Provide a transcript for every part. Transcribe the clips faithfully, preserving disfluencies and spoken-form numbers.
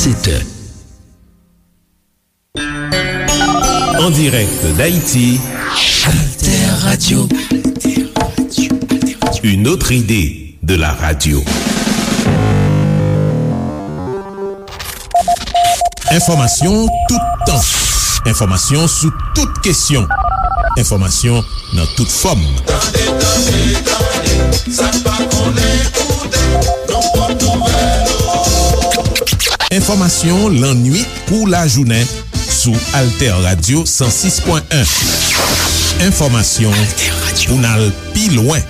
Sept heures. En direct d'Haïti, Alter Radio. Une autre idée de la radio. Enfòmasyon toutan. Enfòmasyon sou tout kesyon. Enfòmasyon nan tout fòm. Tande, tande, tande, sa n pa konnen koute, nou pot nouvèl ou. Enfòmasyon lannwit kou lajounen sou Alter Radio san sis pwen en. Enfòmasyon pou n al pi lwen.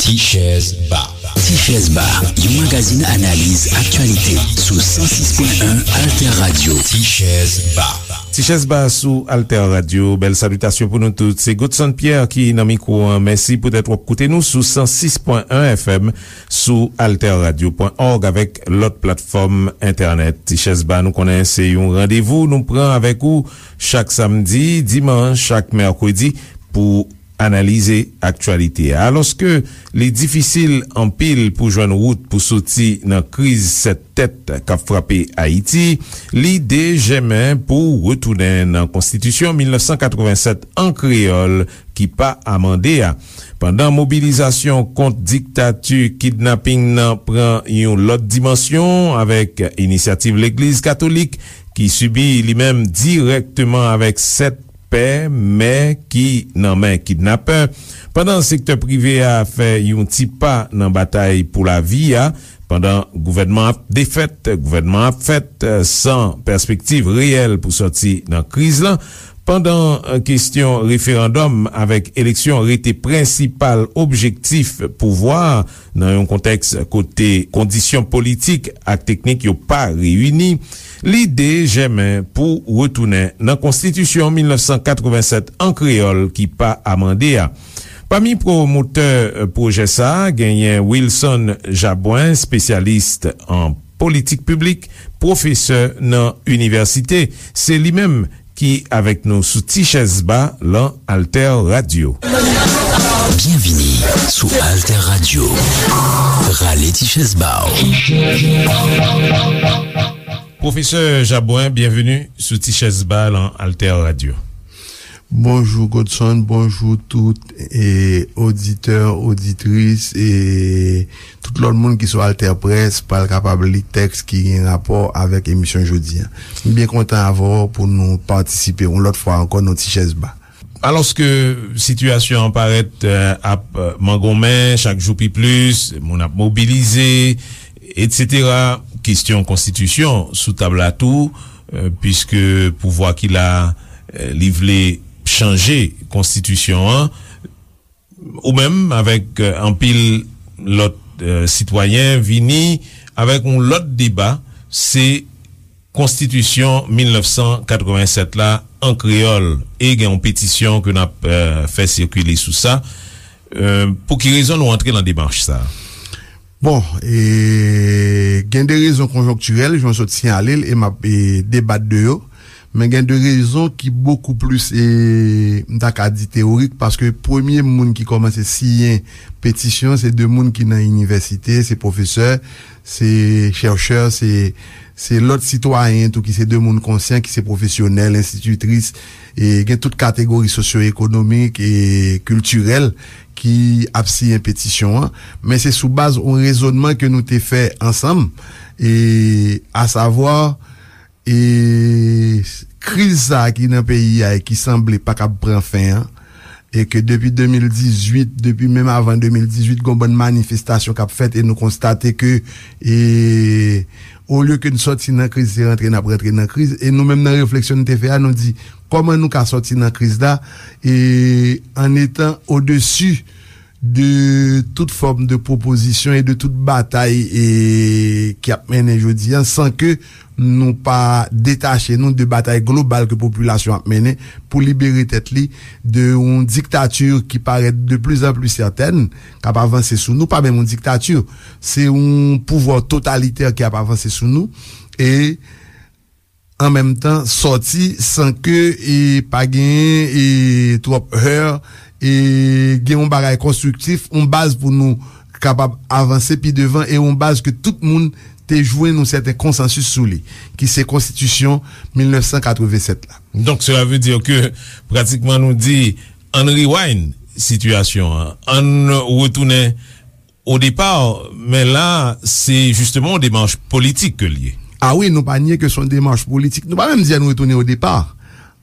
Tichèz Ba. Tichèz Ba, yon magazin analiz aktyalite sou san sis pwen en Alter Radio. Tichèz Ba. Tichèz Ba sou Alter Radio. Bèl salitasyon pou nou tout. Se Godson Pierre ki nan mikwo an. Mèsi poutèt w ap koute nou sou san sis pwen en F M, sou alter radio pwen org avèk lòt platfòm entènèt. Tichèz Ba, nou konnen se yon randevou nou pran avèk ou chak samdi, dimanch ak mèkredi pou analize aktyalite a. Alòske li difisil anpil pou jwenn wout pou soti nan kriz sèt tèt k ap frape Ayiti, lide jèmen pou retounen nan Konstitisyon mil nèf san katrevennsèt an kreyòl ki pa amande a. Pandan mobilizasyon kont diktati kidnaping nan pran yon lòt dimansyon avèk inisyativ Legliz Katolik ki sibi li menm dirèkteman avèk sèt pè, mè ki nan men kidnapè, pandan sektè prive a fè yon ti pa nan batay pou lavi a, pandan gouvènman ap defèt, gouvènman ap fèt, san pèspektiv reyèl pou sòti nan kriz lan, pandan kesyon referandòm avèk eleksyon rete prensipal objektif pouvwa a, nan yon kontèks kote kondisyon politik ak teknik yo pa reyini, lide jèmen pou retounen nan Konstitisyon mil nèf san katrevennsèt an kreyòl ki pa amande a. Pami pwomotè pwojè sa a, genyen Wilson Jabouin, espesyalis an politik piblik, pwofesè nan inivèsite. Se li menm ki avèk nou sou Tichèz Ba lan Alter Radio. Byenvini sou Alter Radio. Rale tichèz ba w. Pwofesè Jabouin, byenveni sou Tichèz Ba lan Alter Radio. Bonjou Godson, bonjou tout, e, oditè, oditris, e tout lòt moun ki sou Alter Press pral kapab li tèks ki gen rapò avèk emisyon jodi a. M byen kontan avè w pou nou patisipe yon lòt fwa ankò nan Tichèz Ba. Alòske sitiyasyon an parèt, e, ap, e, mangonmen chak jou pi plis, moun ap mobilize, etsetera, kesyon konstitisyon sou tab la tou, e, piske pouvwa ki la, e, li vle chanje konstitisyon an, ou menm avèk, e, anpil lòt, e, sitwayen vini avèk yon lòt deba, se Konstitisyon mil nèf san katrevennsèt la an kreyòl, e gen yon petisyon ke n ap, e, fè sikile sou sa. E, pou ki rezon nou antre nan demach sa a? Bon, e, gen de rezon konjonktirèl, jan w sot siyale l, e m ap, e, debat de yo. Men gen de rezon ki bokou plis, e, m ta ka di teyorik, paske premye moun ki kòmanse siyen petisyon, se de moun ki nan inivèsite, se pwofesè, se chèchè, se, se lòt sitwayen tou ki se de moun konsyan, ki se pwofesyonèl, enstititris, e gen tout kategori sosyo-ekonomik e kiltirèl ki ap siyen petisyon an. Men se sou baz yon rezònman ke nou te fè ansanm, e, asavwa, e, kriz sa a ki nan peyi a e ki sanble pa kab pran fen an, e ke depi de mil dizuit, depi menm avan de mil dizuit, gon bann manifestasyon k ap fèt, e nou konstate ke, e, olye ke n sòti nan kriz, se rantre n ap rantre nan kriz. E nou menm nan refleksyon n te fè a, nou di, kòman nou ka sòti nan kriz la, e, an etan odesi de tout fòm de pwopozisyon e de tout batay, e, ki ap mennen jodi a, san ke nou pa detache nou de batay global ke popilasyon ap mennen pou libere tèt li de yon diktati ki parèt de plus en plus certaine, k ap avanse sou nou, pa menm yon diktati, se yon pouvwa totalitè ki ap avanse sou nou, e an menm tan sòti san ke, e, pa genyen, e, twòp heur, e gen yon bagay konstriktif, yon baz pou nou kapab avanse pi devan, e yon baz ke tout moun te jwenn yon sèten konsansis sou li, ki se konstitisyon mil nèf san katreven sèt la. Donk, sela vle di ke pratikman nou di, ann rewind sitiyasyon an, ann retounen o depa, men la, se jisteman yon demach politik ke l ye. A wi, nou pa nye ke se yon demach politik. Nou pa menm di ann retounen o depa.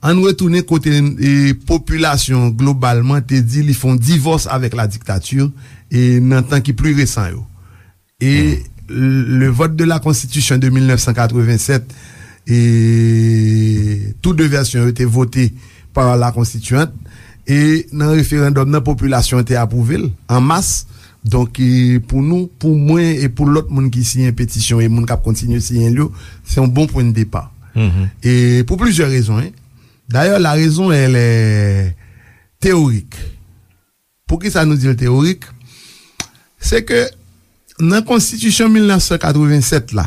Ann retounen kote, e, popilasyon globalman te di li fè yon divòs avèk la diktati, e, nan tan ki pli resan yo. E le vote de la constitution de mil nèf san katreven sèt, e tou de vèsyon yo te vote pa la konstitiyant, e nan referandòm nan, popilasyon te apwouve l an mas. Donk, e, pou nou, pou mwen e pou lòt moun ki siyen petisyon e moun k ap kontinye siyen l yo, se yon bon pwen de depa. E pou plizyè rezon, en. Dayè, la raison, elle est théorique. Poukisa nou di l teyorik? Se ke nan konstitisyon mil nèf san katreven sèt la,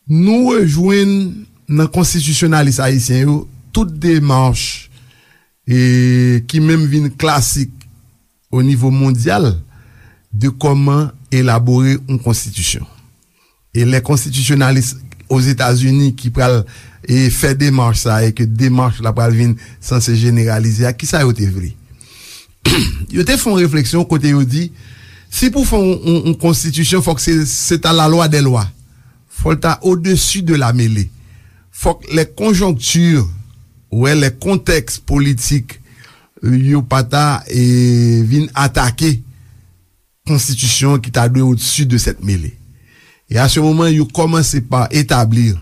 nou rejwenn nan konstitisyonalis ayisyen yo tout demach, e, ki menm vin klasik o nivo mondyal de kòman elabore yon konstitisyon. E lè konstitisyonalis Ozetazini ki pral, e, fè demach sa, e ke demach la pral vin sanse jeneralize a, kisa yo te vle? Yo te fè yon refleksyon kote yo di, si pou fè yon, yon, yon konstitisyon, fòk se, se ta la loi des lois. Fò l ta au-dessus de la mêlée. Fòk les conjonctures, wè, les contextes politiques, yo pa ta, e, vin atake konstitisyon ki ta dwe au-dessus de cette mêlée. E a se moman, yo kòmanse pa etablir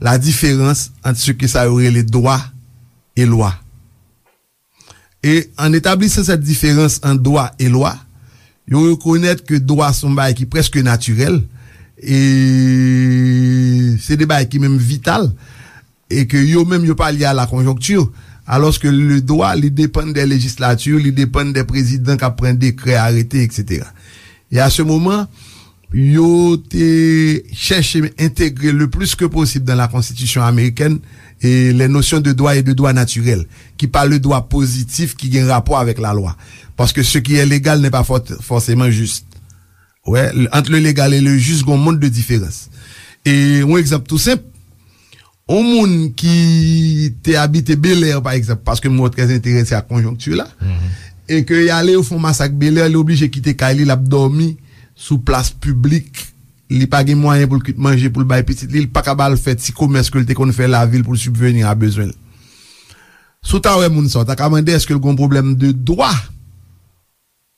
la diferans ant se ke sa yo rele dwa e lwa. E an etablisan sèt diferans ant dwa e lwa, yo rekonèt ke dwa se yon bagay ki prèske natirèl, e se de bagay ki menm vital, e ke yo menm yo pa lye a la konjonkti, alòske le dwa, li depann de lejislati, li depann de prezidan k ap pran dekrè, arete, etsetera. E a se moman, yo te chèche entegre le plus que possible dans la Constitution américaine et les notions de droit et de droit naturel, ki pa le dwa pozitif ki gen rapò avèk lalwa. Paske ce qui est légal n'est pas for- forcément juste. Wè, ant le légal et le juste, gon mond de diferans. E yon egzanp tou senp, yon moun ki te abite Bèlè, pa egzanp, paske m wè w trè enterese ak konjonkti la, e ke y ale yo fè yon masak Bèlè, li oblije kite kay li, l ap dòmi sou plas piblik, li pa gen mwayen pou l kwit manje pou l bay pitit li, li pa ka ba l fè ti komès ke l te konn fè lavil pou l sibveni a bezwen l. Si w ta wè moun sa, w ta ka mande èske l gon pwoblèm de dwa?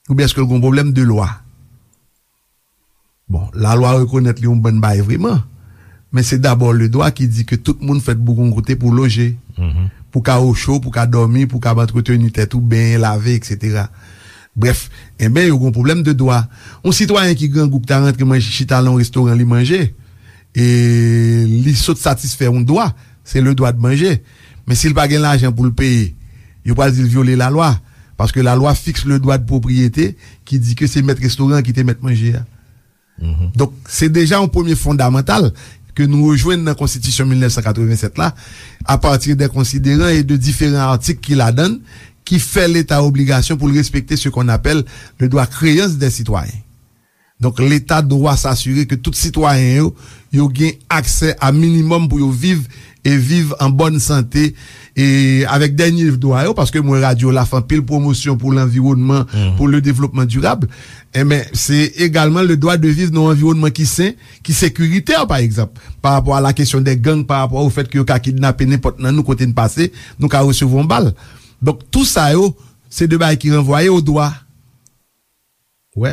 Oubyen èske l gon pwoblèm de lwa? Bon, lalwa rekonèt li yon bann bagay vreman, men se dabò le dwa ki di ke tout moun fèt pou gon kote pou loje, pou ka ocho, pou ka dòmi, pou ka antreteni tèt ou, benyen, lave, etsetera. Brèf, enben, yo gon pwoblèm de dwa. Yon sitwayen ki grangou ki ta rantre manje, chita nan yon restoran, li manje, e li sot satisfè yon dwa, se le dwa de manje. Men si l pa gen lajan pou l peye, yo pral di l vyole lalwa. Paske lalwa fiks le dwa de pwopriyete ki di ke se mèt restoran ki te mèt manje a. Donk, se deja yon premye fondamantal ke nou rejwenn nan Konstitisyon mil nèf san katreven sèt la, apati de konsideran e de diferan atik ki ladan l, ki fè Leta obligasyon pou l respekte ce qu'on appelle le droit créance des citoyens. Donk, Leta dwa s'assurer ke tout sitwayen yo, yo gen aksè a minimòm pou yo viv e viv an bòn sante, e avèk dènye dwa yo, paske m wè radyo la fè anpil pwomosyon pou lanviwònman, pou le développement durable, enben, se egalman le droit de vivre nan yon anviwònman ki sen, ki sekiritè, pa egzanp, pa rapò a la kesyon de gang, pa rapò au fait ke yo ka kidnape nenpòt nan nou kote n pase, nou ka resevwa yon bal. Donk, tou sa yo, se de bagay ki ranvwaye o dwa. Wè,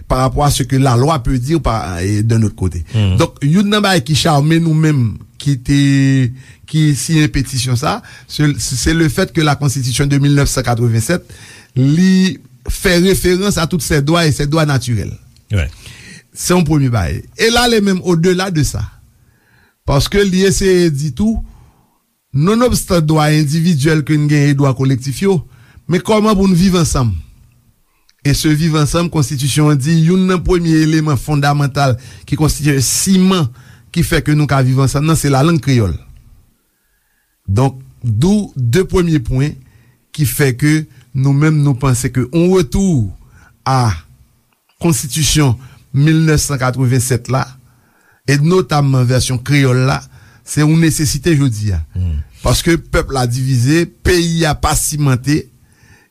pa rapò a ce que la loi peut dire pa, e, d'un autre côté. Donk, youn nan bagay ki chame nou menm, ki te, ki siyen petisyon sa, se, se le fait que la Constitution de mil nèf san katreven sèt, li fè referans a tout ces droits et ces droits naturels. Se yon premye bagay. E l ale menm odela de sa. Paske li eseye di tou, nonobstan dwa endividyèl ke n genyen e dwa kolektif yo, men kòman pou n viv ansanm? E se viv ansanm, konstitisyon an di, youn nan premye eleman fondamantal ki konstitye siman ki fè ke nou ka viv ansanm nan, se lalang kreyòl. Donk, dou de premye pwen ki fè ke Nou menm, nou panse ke yon retou a konstitisyon mil nèf san katreven sèt la, e notamman vèsyon kreyòl la, se yon nesesite jodi a. Paske pèp la divize, peyi a pa simante,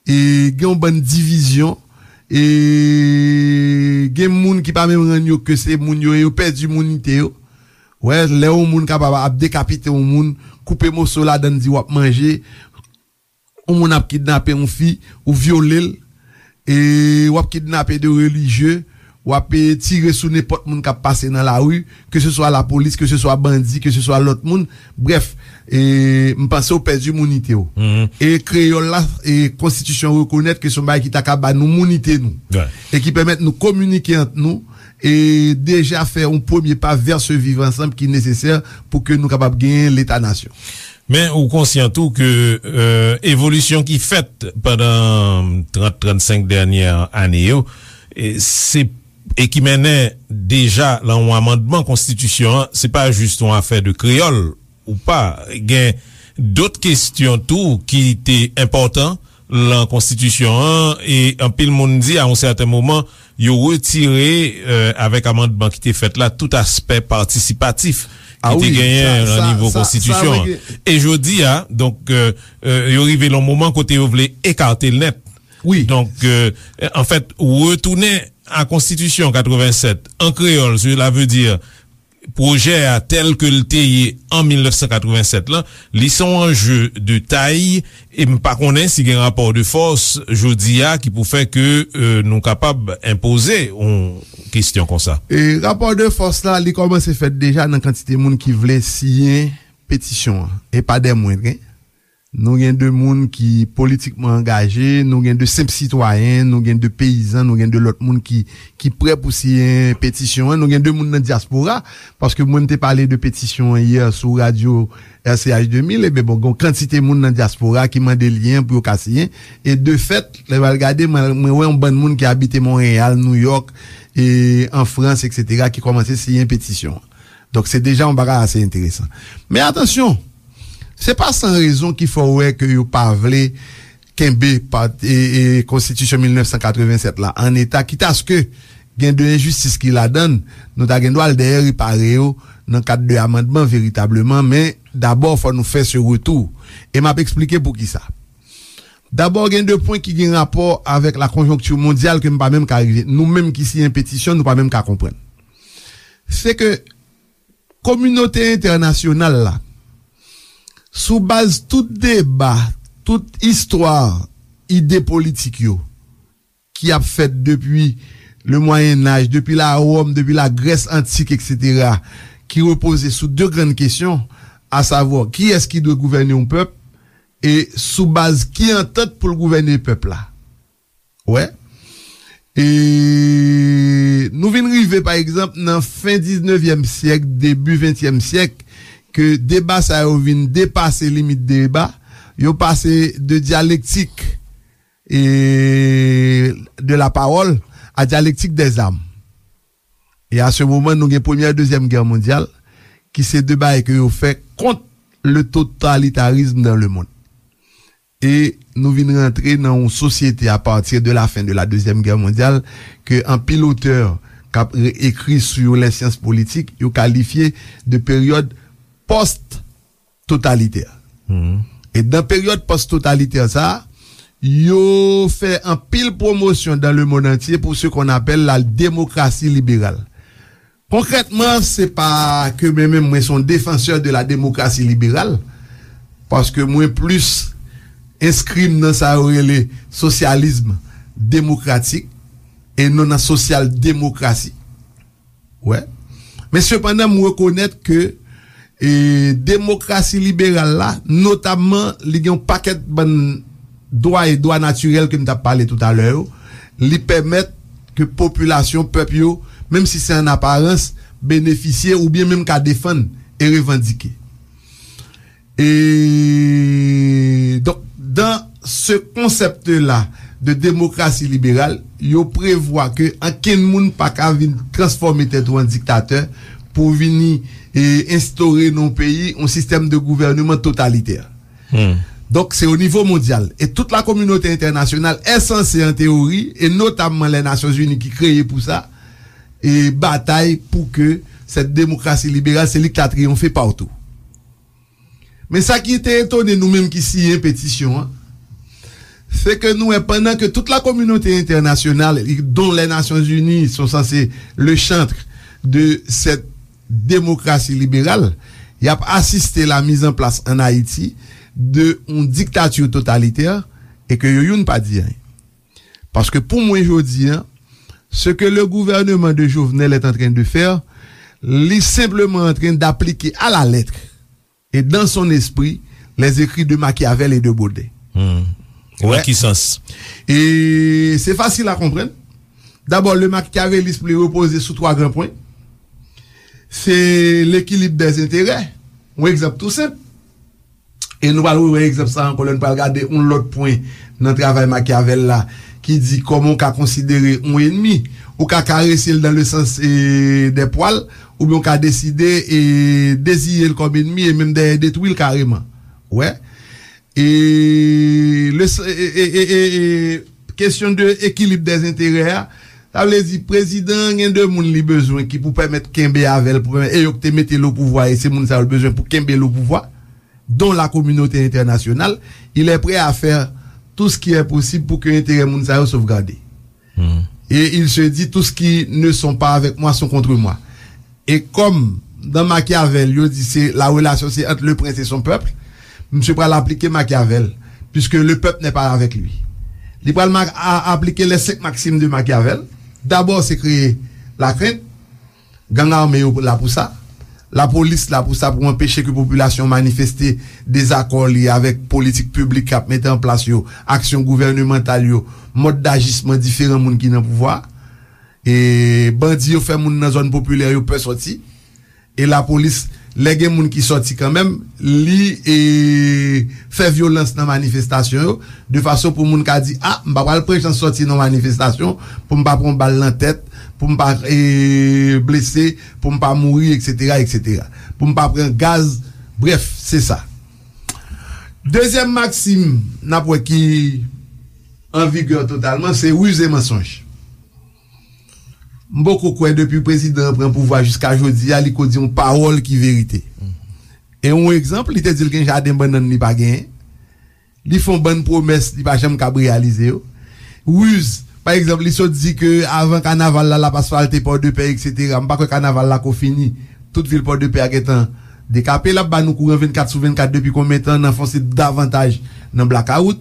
e gen yon bann divizyon, e gen moun ki pa menm rann yo ke se moun yo, e yo pèdi mounite yo. Wè, lè yon moun kapab ap dekapite yon moun, koupe moso ladann, di w ap manje, yon moun ap kidnape yon fi, ou vyole l, e w ap kidnape de relijye, w ap, e, tire sou nenpòt moun k ap pase nan lari, ke se swa lapolis, ke se swa bandi, ke se swa lòt moun. Brèf, e, m panse w pèdi mounite w. E kreyòl la, e konstitisyon rekonèt ke se yon bagay ki ta ka ba nou mounite nou. E ki pèmèt nou kominike ant nou, e deja fè yon premye pa vè se viv ansanm ki nesesè pou ke nou kapab genyen leta nasyon. Men ou konsyan tou ke, e, evolisyon ki fèt pandan trant, trannsenk dènyè ane yo, e, se, e ki mennen deja lan yon amandman konstitisyon an, se pa jis yon afè de kreyòl ou pa. Gen dòt kesyon tou ki te enpòtan lan konstitisyon an, e anpil moun di a yon sèten moman, yo retire, e, avèk amandman ki te fèt la, tout aspè patisipatif ki te genyen lan nivo konstitisyon an. E jodi a, donk, e, e, yo rive lan moman kote yo vle ekate l nèt. Donk, e, anfèt, retounen a konstitisyon katreven sèt an kreyòl, cela veut dire pwojè a tèl ke l te ye an mil nèf san katreven sèt lan, li se yon anje de tay, e m pa konnen si gen rapò de fòs jodi a ki pou fè ke, e, nou kapab enpoze yon kesyon konsa. E rapò de fòs la, li kòmanse fèt deja nan kantite moun ki vle siyen petisyon an, e pa dè mwendren. Nou gen de moun ki politikman angaje, nou gen de senp sitwayen, nou gen de peyizan, nou gen de lòt moun ki, ki prè pou siyen petisyon an, nou gen de moun nan dyaspora, paske mwen m te pale de petisyon an yè sou radyo R C H de mil, ebyen bon, gen yon kantite moun nan dyaspora ki mande lyen pou yo ka siyen, e de fèt, lè m al gade, mwen, mwen wè yon bann moun ki abite Monreyal, Nouyòk, e an Frans, etsetera, ki kòmanse siyen petisyon an. Donk, se deja yon bagay ase enteresan. Men atansyon, se pa san rezon ki fè w wè ke yo pa vle kenbe pa, e, e, konstitisyon mil nèf san katreven sèt la an eta, kitaske gen de enjistis ki ladan l, nou ta gen dwa al dèyè repare yo nan kad de amandman veritableman, men dabò, fò nou fè se retou. E m ap eksplike poukisa. Dabò, gen de pwen ki gen rapò avèk la konjonkti mondyal ke m pa menm ka rive. Nou menm ki siyen petisyon, nou pa menm ka konprann. Se ke kominote entènasyonal la, sou baz tout deba, tout istwa ide politik yo, ki ap fèt depi le Mwayen Aj, depi la Wòm, depi la Grès antik, etsetera, ki repoze sou de grann kesyon, asavwa, kiyès ki dwe gouvène yon pèp, e sou baz ki antant pou l gouvène pèp la. Wè. E nou vin rive, pa egzanp, nan fen diznevyèm syèk, debi ventyèm syèk, ke deba sa yo vin depase limit deba, yo pase de dyalektik, e, de la parole a dyalektik des armes. E a se moman, nou gen premyè, dezyèm gè mondyal, ki se de bagay ke yo fè kont le totalitarisme dans le monde. E nou vin rantre nan yon sosyete a partir de la fin de la deuxième guerre mondiale ke anpil otè k ap re-, ekri sou les sciences politiques, yo kalifye de peryòd pòs-totalitè. E dan peryòd pòs-totalitè sa a, yo fè anpil pwomosyon dans le monde entier pour ce qu'on appelle la démocratie libérale. Konkrètman, se pa ke mwen menm, mwen se yon défenseur de la démocratie libérale, paske mwen plis enskri m nan sa yo rele sosyalism demokratik e non nan sosyal demokrasi. Wè. Men sepandan, m rekonèt ke, e, demokrasi liberal la, notamman, li gen yon pakèt bann dwa e dwa natirèl ke m t ap pale toutalè yo, li pèmèt ke popilasyon, pèp yo, menm si se an aparans, benefisye oubyen menm ka defann e revandike. E, donk, dans ce concept-là de démocratie libérale, yo prevwa ke ankenn moun pa ka vin transfòme tèt ou an diktatè pou vini, e, enstore nan yon peyi yon sistèm de gouvèneman totalitè. Donk, se o nivo mondyal. E tout la kominote entènasyonal è sanse, an teyori, e notamman Lè Nasyonzini ki kreye pou sa, e batay pou ke sèt demokrasi liberal, se li ki ta triyonfe patou. Men sa ki te etone nou menm ki siyen petisyon an, se ke nou wè pandan ke tout la kominote entènasyonal, dont Lè Nasyonzini, sont censés le chantre de cette démocratie libérale, y ap asiste la mise en place en Haïti de yon diktati totalitè e ke yo youn pa di anyen. Paske pou mwen jodi an, ce que le gouvernement de Jovenel est en train de faire, li senpleman antren d'aplike à la lettre et dans son esprit les écrits de Machiavel et de Baudet. Hmm. Nan ki sans? E se fasil a konprann. Dabò, le machiavélisme li repoze sou twa gran pwen. Se l'équilibre des intérêts. Yon egzanp tou senp. E nou pral rewè egzanp sa ankò lè nou pral gade yon lòt pwen nan travay Machiavel la ki di kòman w ka konsidere yon enmi. Ou ka karese l dans le sens e, des poils, oubyen w ka deside e, deziye l kòm enmi e menm dèyè detwi l kareman. Ou wè? E, le, e, e, e, e, e, kesyon de ekilib dèzenterè a, sa vle di prezidan an gen de moun li bezwen ki pou pèmèt kenbe avè l, pou pèmèt, e yo ki te mete l o pouvwa, e se moun sa yo l bezwen pou kenbe l o pouvwa, dont la communauté internationale, il est prêt à faire tout ce qui est possible pour que enterè moun sa yo sovgade. Et il se dit, tout ce qui ne sont pas avec moi sont contre moi. E kòm dans Machiavel, yo di se la relation c'est entre le prince et son peuple, misye pral aplike Machiavel, puisque le peuple n'est pas avec lui. Li pral ma- a- aplike les cinq maximes de Machiavel. Dabò, se kreye lakrent. Gang ame yo la pou sa. Lapolis la pou sa, pou anpeche ke popilasyon manifeste dezakò li avèk politik piblik k ap mete an plas yo, aksyon gouvènemantal yo, mòd dajisman diferan moun ki nan pouvwa. E bandi yo fè moun nan zòn popilè yo pè sòti. E lapolis, lè gen moun ki sòti kanmenm, li e, fè vyolans nan manifestasyon yo, de fason pou moun ka di, a, m pa pral pran chans sòti nan manifestasyon pou m pa pran bal nan tèt, pou m pa e, blese, pou m pa mouri, etsetera, etsetera. Pou m pa pran gaz, brèf, se sa. Dezyèm maksim, n ap wè ki an vigè totalman, se riz e mansonj. M poko kwè depi prezidan an pran pouvwa jiska jodi a, li ko di yon pawòl ki verite. E yon egzanp, li te di l gen jaden bannann li pa genyen. Li fè yon bann pwomès, li pa janm kab reyalize yo. Riz, pa egzanp, li sot di ke avan kanaval la, l ap asfalte Pòdepè, etsetera. M pa kwè kanaval la ko fini. Tout vil Pòdepè a gentan dekape. L ap ba nou kouran vennkat sou vennkat depi konbyen tan, n anfonse davantaj nan blakawout.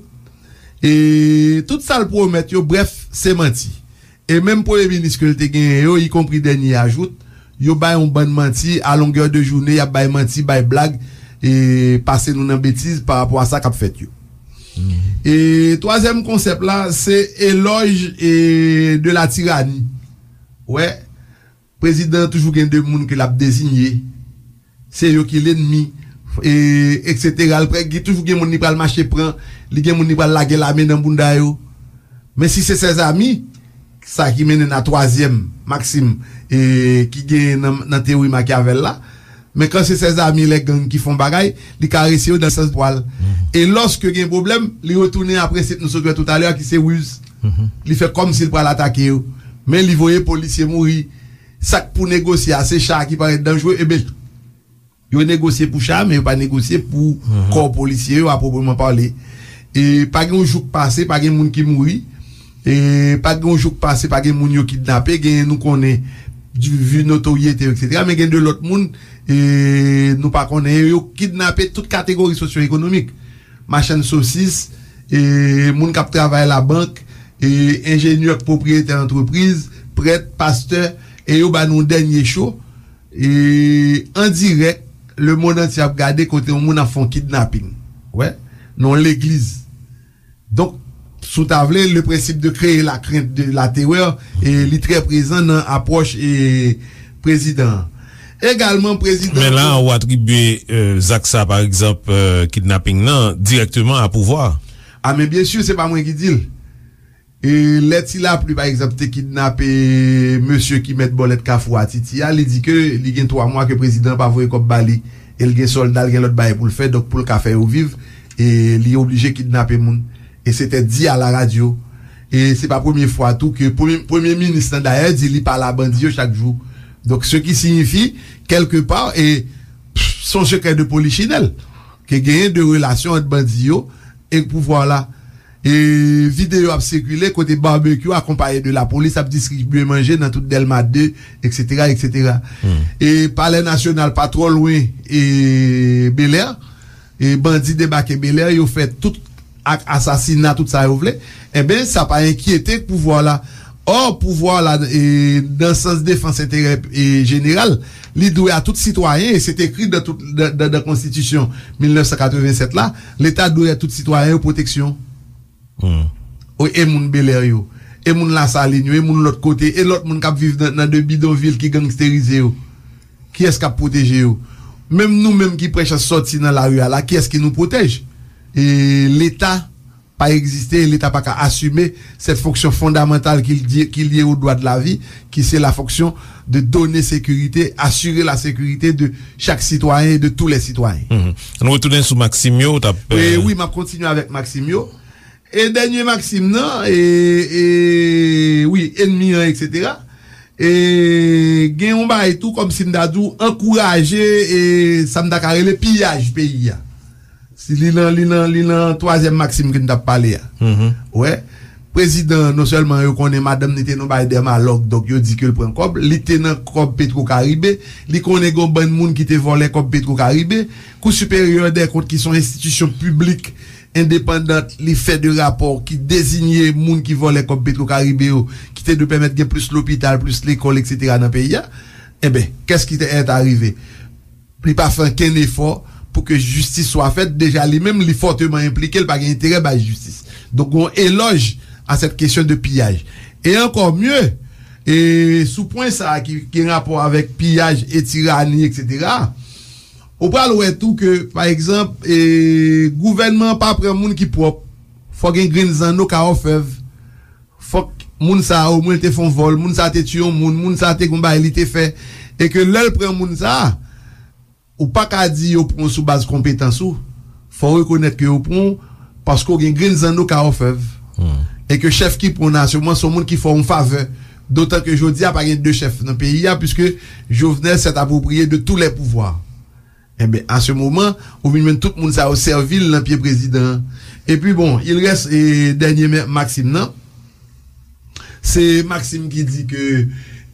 E tout sa l pwomèt yo, brèf, se manti. E menm premye minis ke l te genyen yo, ikonpri dènye a jout, yo bay yon bann manti, a longè de jounen, y ap bay manti, bay blag, e pase nou nan betiz pa rapò a sa k ap fèt yo. E twazyèm konsèp la, se elòj e de la tirani. Wè, prezidan an toujou gen de moun ke l ap deziye. Se yo ki lènmi, e, etsetera. L prè, gen toujou gen moun li pral mache pran, li gen moun li pral lage lame nan bounda yo. Men si se ses amis, sa ki mennen n a twazyèm maksim e, ki genyen nan, nan teyori Machiavel la, men kan se ses amis lè gang ki fè yon bagay, li karese yo nan sans pwa l. E lòske gen pwoblèm, li retounen a prensip nou sot wè toutalè a ki se riz. Li fè kòmsi l pral atake yo. Men li voye polisye mouri. Sa k pou negosye a, se cha a ki parèt danjre, ebyen, yo negosye pou cha a, men yo pa negosye pou kò polisye yo, a pwoprèman pale. E pa gen yon jou k pase, pa gen moun ki mouri. E pa gen yon jou k pase, pa gen moun yo kidnape, gen nou konnen, vi notoryete yo, etsetera. Men gen de lòt moun, e nou pa konnen, yo kidnape tout kategori sosyo-ekonomik. Machann sosis, e moun k ap travay labank, e enjenyè k pwopriyetè antrepriz, prèt, pastè, e yo ba nou dènye cho. E an dirèk, lemonn antye ap gade kote yon moun ap fè yon kidnaping. Wè, nan yon legliz. Donk, si w ta vle, le principe de créer la crainte, de la terreur, e li trè prezan nan apwòch e prezidan an. Egalman, prezidan. Men la, ou atribye e, zak sa, pa egzanp, e, kidnaping nan, dirèkteman a pouvwa. A, men byen si, se pa mwen ki di l. E lè Ti Lapli, pa egzanp, te kidnape mesye ki mèt bòlèt Kafou a Titi a, li di ke li gen twa mwa ke prezidan an pa voye kòb ba li. E l gen sòlda, l gen lòt bagay pou l fè, donk pou l ka fè yo viv, E li oblije kidnape moun. E se te di a la radyo. E se pa premye fwa tou ke premye, premye minis lan dayè di li pale a bandi yo chak jou. Donk, ce qui signifie, quelque part, e se yon sekrè de polichinèl, ke genyen de relasyon ant bandi yo e pouvwa la. E videyo ap sikile kote Barbecue akonpaye de lapolis ap distribye manje nan tout Dèlma de, et cetera, et cetera. E Palè Nasyonal pa twò lwen e Bèlè. E bandi debake Bèlè, yo fè tout ak asasina, tout sa yo vle. Enben, sa pa enkyete pouvwa la. Ò, pouvwa la, e, nan sans defans enterè e jeneral, li dwe a tout sitwayen, e se te ekri dan tout, dan, dan, dan konstitisyon mil nèf san katrevennsèt la, Leta dwe a tout sitwayen yo pwoteksyon. O, e moun Bèlè yo, e moun Lasalin yo, e moun lòt kote, e lòt moun k ap viv nan, nan de bidonvil ki gangsterize yo. Kiyès k ap pwoteje yo? Menm nou menm ki pran chans sòti nan lari a la, kiyès ki nou pwotèj? E Leta pa egziste, e Leta pa ka asime cette fonction fondamentale ki lye, ki lye au droit de la vie, qui c'est la fonction de donner sécurité, assurer la sécurité de chaque citoyen et de tous les citoyens. Ann retounen sou maksim yo, w t ap, E, wi, m ap kontinye avèk maksim yo. E dènye maksim nan, e, e, wi, enmi an, et cetera. E gen yon bagay tou, kòmsi m ta di w, ankouraje, e sa m ta ka rele piyaj peyi a. Si li nan, li nan, li nan twazyèm maksim ke n t ap pale a. Wè, prezidan, non sèlman yo konnen madanm li te nan bagay dèmalòg, donk yo di ke l pran kòb, li te nan kòb Petro Caribe, li konnen gen yon bann moun ki te vòlè kòb Petro Caribe. Kou Siperyè dè Kont, ki se yon enstitisyon piblik endepandan, li fè de rapò ki dezinye moun ki vòlè kòb Petro Caribe yo, ki te dwe pèmèt gen plis lopital, plis lekòl, et cetera nan peyi a. Enben, qu'est-ce qui est arrivé? Li pa fè ankenn efò pou ke jistis swa fèt. Deja li menm, li fòteman enplike, li pa gen enterè bay jistis. Donk, yon elòj a cette question de piyaj. E encore mieux, e sou pwen sa a ki gen rapò avèk piyaj e tirani, et cetera, ou pral wè tou ke, pa egzanp, e, gouvènman an pa pran moun ki pwòp. Fò gen grenn zanno ka òfèv. Fòk moun sa a, omwen, l te fè yon vòl, moun sa a te tiye yon moun, moun sa a te gen yon bagay li te fè. E ke lè l pran moun sa a, ou pa ka di yo pran w sou baz konpetans ou. Fò w rekonèt ke yo pran w paske w gen grenn zanno ka òfèv. E ke chèf ki pran w nan asirans se yon moun ki fè w yon favè. Dotan ke jodi a pa gen de chèf nan peyi a, puiske Jovenel s'est approprié de tous les pouvoirs. Enben, à ce moment, ou vin jwenn tout moun sa yo sèvi l nan pye prezidan an. Epi bon, il reste, e, dènye men-, maksim nan. Se maksim ki di ke,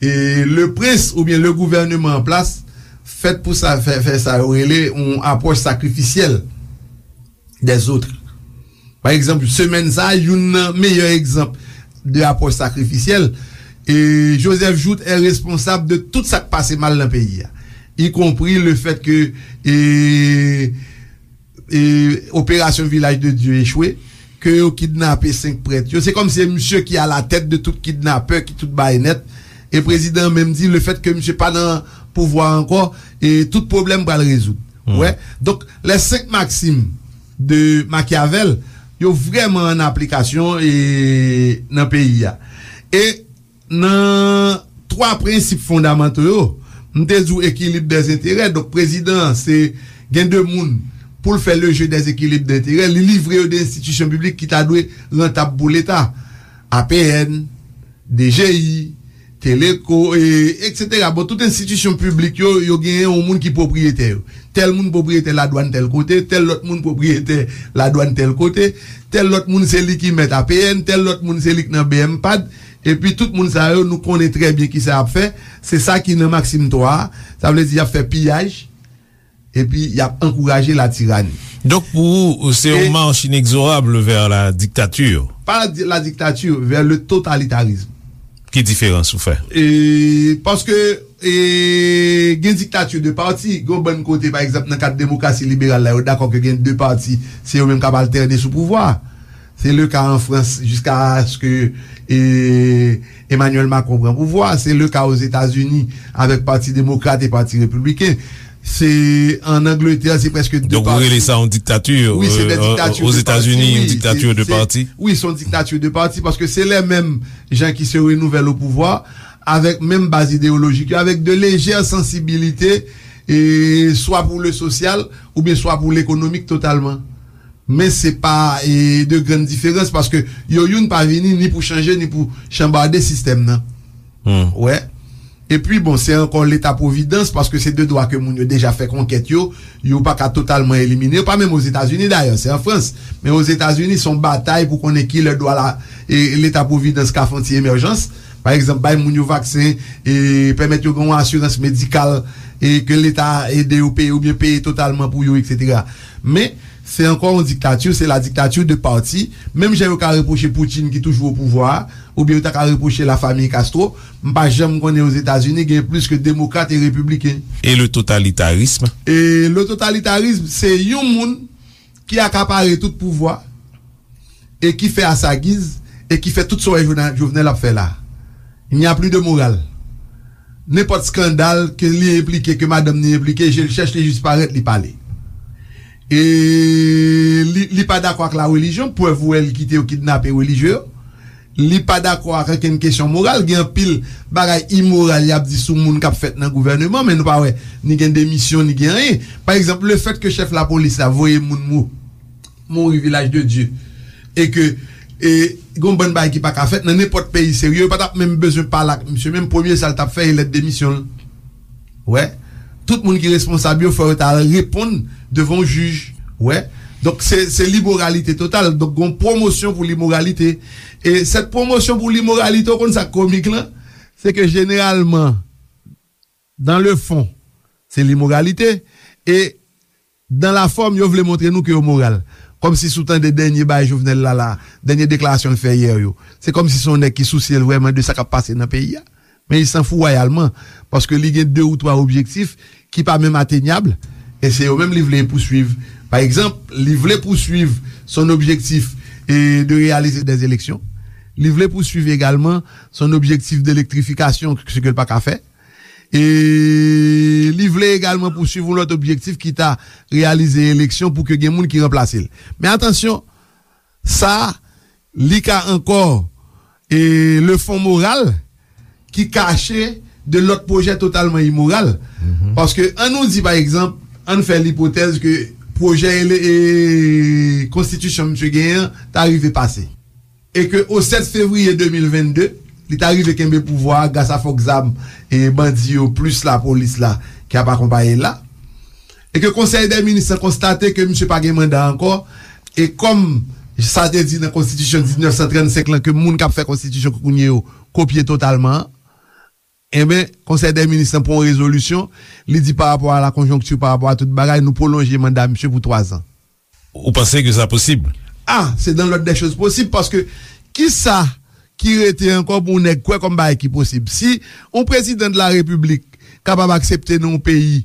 e, le prince oubyen le gouvernement en place fèt pou sa, fè, fè sa yo rele yon apwòch sakrifisyèl des autres. Pa egzanp, semèn sa a, youn nan meyè egzanp de apwòch sakrifisyèl, e Joseph Jouthe est responsable de tout sa k pase mal nan peyi a, y compris le fait que, e, e, opération Village de Dieu echwe, ke yo kidnape senk prèt yo. Se kòmsi se misye ki à la tête de tout kidnapè, ki tout bay nèt. E prezidan an menm di, le fait que misye pa nan pouvwa ankò, e tout pwoblèm pral rezoud. Wè. Donk, les cinq maximes de Machiavel, yo vrèman an aplikasyon, e, nan peyi a. E nan twa prensip fondamanto yo, m te di w ekilib dèzenterè. Donk, prezidan an, se gen de moun pou l fè le jeu des équilibres d'intérêt, li livre yo de enstitisyon piblik ki ta dwe rantab pou Leta. A P N, D G I, Teleco, e, et cetera. Bon, tout enstitisyon piblik yo, yo genyen yon moun ki pwopriyetè yo. Tèl moun pwopriyetè ladwàn tèl kote, tèl lòt moun pwopriyetè ladwàn tèl kote, tèl lòt moun se li ki mèt A P N, tèl lòt moun se li k nan B M pad, epi tout moun sa yo, nou konnen trè byen kisa y ap fè. Se sa ki nan maksim twa a, sa vle di y ap fè piyaj, epi y ap ankouraje latirani. Donk, pou ou, se yon mach inexorable vers la dictature. Pas la, la dictature, vers le totalitarisme. Ki diferans ou fè? E, paske, e, gen diktati de pati, gen yon bann kote, pa egzanp, nan kad demokrasi liberal la, yo dakò ke gen de pati, se yo menm k ap altène sou pouvwa. Se le ka an Frans, jiskaske, e, Emmanuel Macron pran pouvwa. Se le ka Ozetazini avèk Pati Demokrat e Pati Repibliken. Se an Angletè, se prèske de pati. Donk, ou rele sa yon diktati? Wi, se de diktati de pati, wi. Ozetazini, yon diktati de pati? Wi, se yon diktati de pati, paske se lè menm jan ki se renouvèl o pouvwa, avèk menm baz ideyolojik yo, avèk de lejè sansibilite, e swa pou le sosyal, oubyen swa pou lekonomik totalman. Men se pa e, de grann diferans, paske yo youn pa vini ni pou chanje, ni pou chanbade sistèm nan. Wè. Epi, bon, se ankò Leta Pwovidans, paske se de dwa ke moun yo deja fè konkèt yo, yo pa ka totalman elimine yo, pa menm Ozetazini dayè, se an Frans. Men Ozetazini, se yon batay pou konnen ki lè dwa la, e, Leta Pwovidans ka fè yon ti emèjans. Pa egzanp, bay moun yo vaksen, e, pèmèt yo gen yon asirans medikal, e, ke Leta ede yo peye oubyen peye totalman pou yo, etsetera. Men, se ankò yon diktati, se la dictature de parti. Menm jan yo ka repwoche Putin ki toujou o pouvwa a, oubyen yo ta ka repwoche lafanmi Castro, m pa janm konnen Ozetazini gen plis ke demokrat e repibliken. E le totalitarisme? E le totalitarisme, se yon moun ki akapare tout pouvwa e ki fè a sa giz e ki fè tout sa w wè Jovenel, Jovenel ap fè la. Il n'y a plus de morale. Nenpòt skandal ke li enplike, ke madanm li enplike, je l chèch, li jis parèt, li pale. E li, li pa dakò ak la relijyon, prèv ou wè li kite yo kidnape relijye yo. Li pa dakò ak ankenn kesyon moral. Gen anpil bagay imoral y ap di sou moun k ap fèt nan gouvèneman, men nou pa wè ni gen demisyon, ni gen anyen. Pa egzanp, lefèt ke chèf lapolis la voye moun mou, mouri Vilaj de Dye, e ke, e, gon bann bagay ki pa ka fèt nan nenpòt peyi serye, yo pa t ap menm bezwen pale ak misye, menm premye sa l t ap fè, e lèt demisyon l. Wè. Tout moun ki responsab yo, fò yo ta al reponn devan yon jij. Wè. Donk, se, se limoralite total. Donk, gon pwomosyon pou limoralite. E sèt pwomosyon pou limoralite, ou konn sa k komik lan? Se ke jeneralman, dans le fond, se limoralite. E dans la forme, yo vle montre nou ke yo moral. Kòmsi si w tande dènye bagay Jovenel la, la, dènye deklarasyon l fè yè yo. Se kòmsi se yon nèg ki sousye l vrèman de sa k ap pase nan peyi a. Men li sanfou wayalman, paske li gen de ou twa objektif ki pa menm atenyab, e se yo menm li vle pouswiv. Pa egzanp, li vle pouswiv son objektif e de réaliser des élections. Li vle pouswiv egalman son objektif de elektrifikasyon, se ke l pa ka fè. E li vle egalman pouswiv yon lòt objektif ki ta reyalize eleksyon pou ke gen moun ki ranplase l. Men atansyon, sa, li ka ankò, e, le fon moral ki kache de lòt pwojè totalman imoral. Paske, ann nou di, pa egzanp, ann fè lipotèz ke pwojè ele-, e, konstitisyon misye genyen an ta rive pase. E ke o sèt fevriye de mil vennde, li ta rive kenbe pouvwa a gras a fòk zam e bandi yo plis lapolis la ki ap akonpaye l la. E ke Konsèy dè Minis lan konstate ke misye pa gen manda ankò, e kòm sa te di nan konstitisyon diznèf san trannsenk lan ke moun k ap fè konstitisyon kounye yo kopye totalman an, enben, Konsèy dè Minis lan pran yon rezolisyon, li di pa rapò a la konjonkti, pa rapò a tout bagay, nou pwolonje manda misye pou twazan. Ou panse ke sa posib? Ah, c'est dans l'ordre des choses possibles, paske kisa ki rete ankò pou yon nèg kwè kòm bagay ki posib? Si yon prezidan de la repiblik kapab aksepte nan yon peyi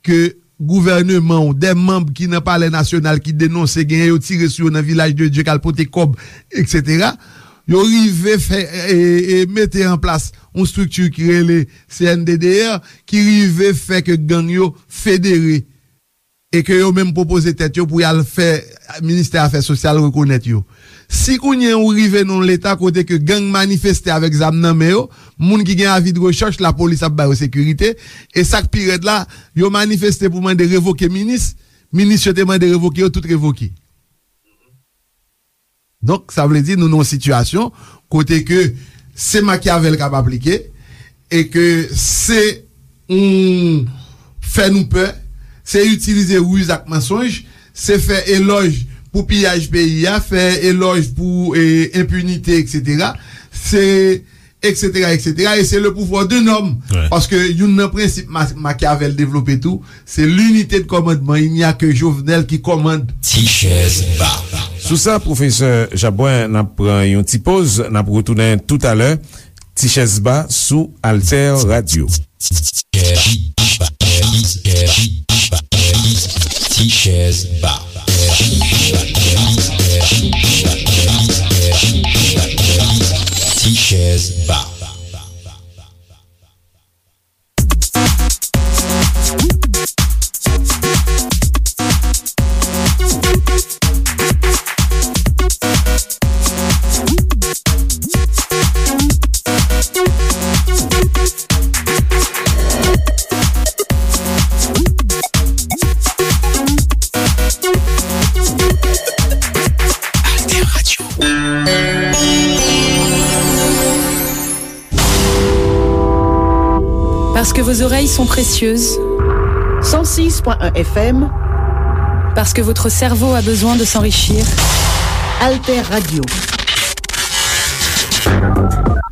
ke gouvèneman w, de manm ki nan Palè Nasyonal ki denonse genyen yo tire sou yo nan Vilaj de Dye k al pote kòb, etsetera, yo rive fè, e, e, mete an plas yon estrikti ki rele C N D D R, ki rive fè ke gang yo federe e ke yo menm pwopoze tèt yo pou y al fè ministè afè sosyal rekonèt yo. Si kounye a ou rive nan yon leta kote ke gang manifeste avèk zam nan men yo, moun ki gen avi de rechèch, lapolis ap ba yo sekirite, e sa k pi rèd la, yo manifeste pou mande revoke minis, minis yo te mande revoke yo, tout revoke. Donk, sa vle di nou nan yon sitiyasyon kote ke se Machiavel k ap aplike e ke se yon fè nou pè, se itilize riz ak mansonj, se fè elòj pou piyaj peyi a, fè elòj pou, e, enpinite, etsetera. Se etsetera, etsetera, e se le pouvoir d'un homme. Paske youn nan prensip Ma-, Machiavel devlope tou, se l'unité de commandement, il n'y a que Jovenel qui commande. Ti chèz ba. Sou sa, pwofesè Jabwen, n ap pran yon ti poz, n ap retounen toutalè. Ti chèz ba sou Alter Radio. Ti chèz ba. Ti chèz ba. Parce que vos oreilles sont précieuses. Cent six point un F M. Parce que votre cerveau a besoin de s'enrichir. Alter Radio.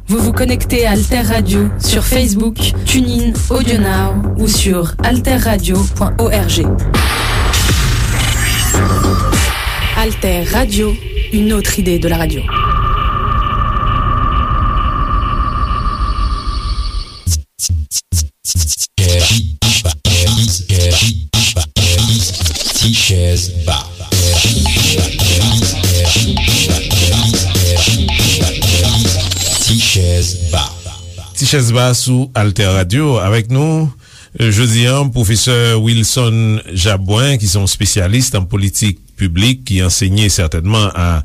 Vous vous connectez à Alter Radio sur Facebook, TuneIn, AudioNow ou sur alterradio point org. Alter Radio, une autre idée de la radio. Ti chèz ba. Ti chèz ba. Ti chèz ba sou Alter Radio. Avèk nou, euh, jodi a, pwofesè Wilson Jabouin, ki se yon spesyalis nan politik piblik, ki ansenye sètènman a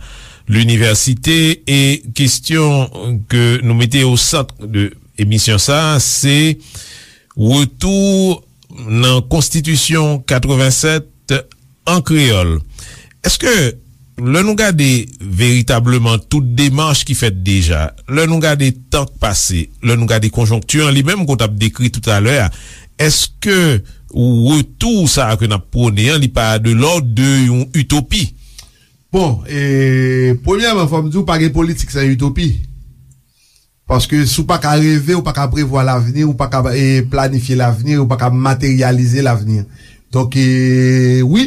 linivèsite. E kesyon ke nou mete o sant de emisyon sa a, se retou nan Konstitisyon katrevennsèt an kreyòl. Èske, lè nou gade veritableman tout demach ki fèt deja, lè nou gade tan k pase, lè nou gade konjonkti an li menm ke w t ap dekri toutalè a, èske retou sa a ke n ap pwone an, li pa de lòd de yon itopi? Bon, e, premyèman, fò m di w, pa gen politik san itopi. Paske si w pa ka reve, ou pa ka prevwa lavni, ou pa ka, e, planifye lavni, ou pa ka materyalize lavni. Donk, e, wi,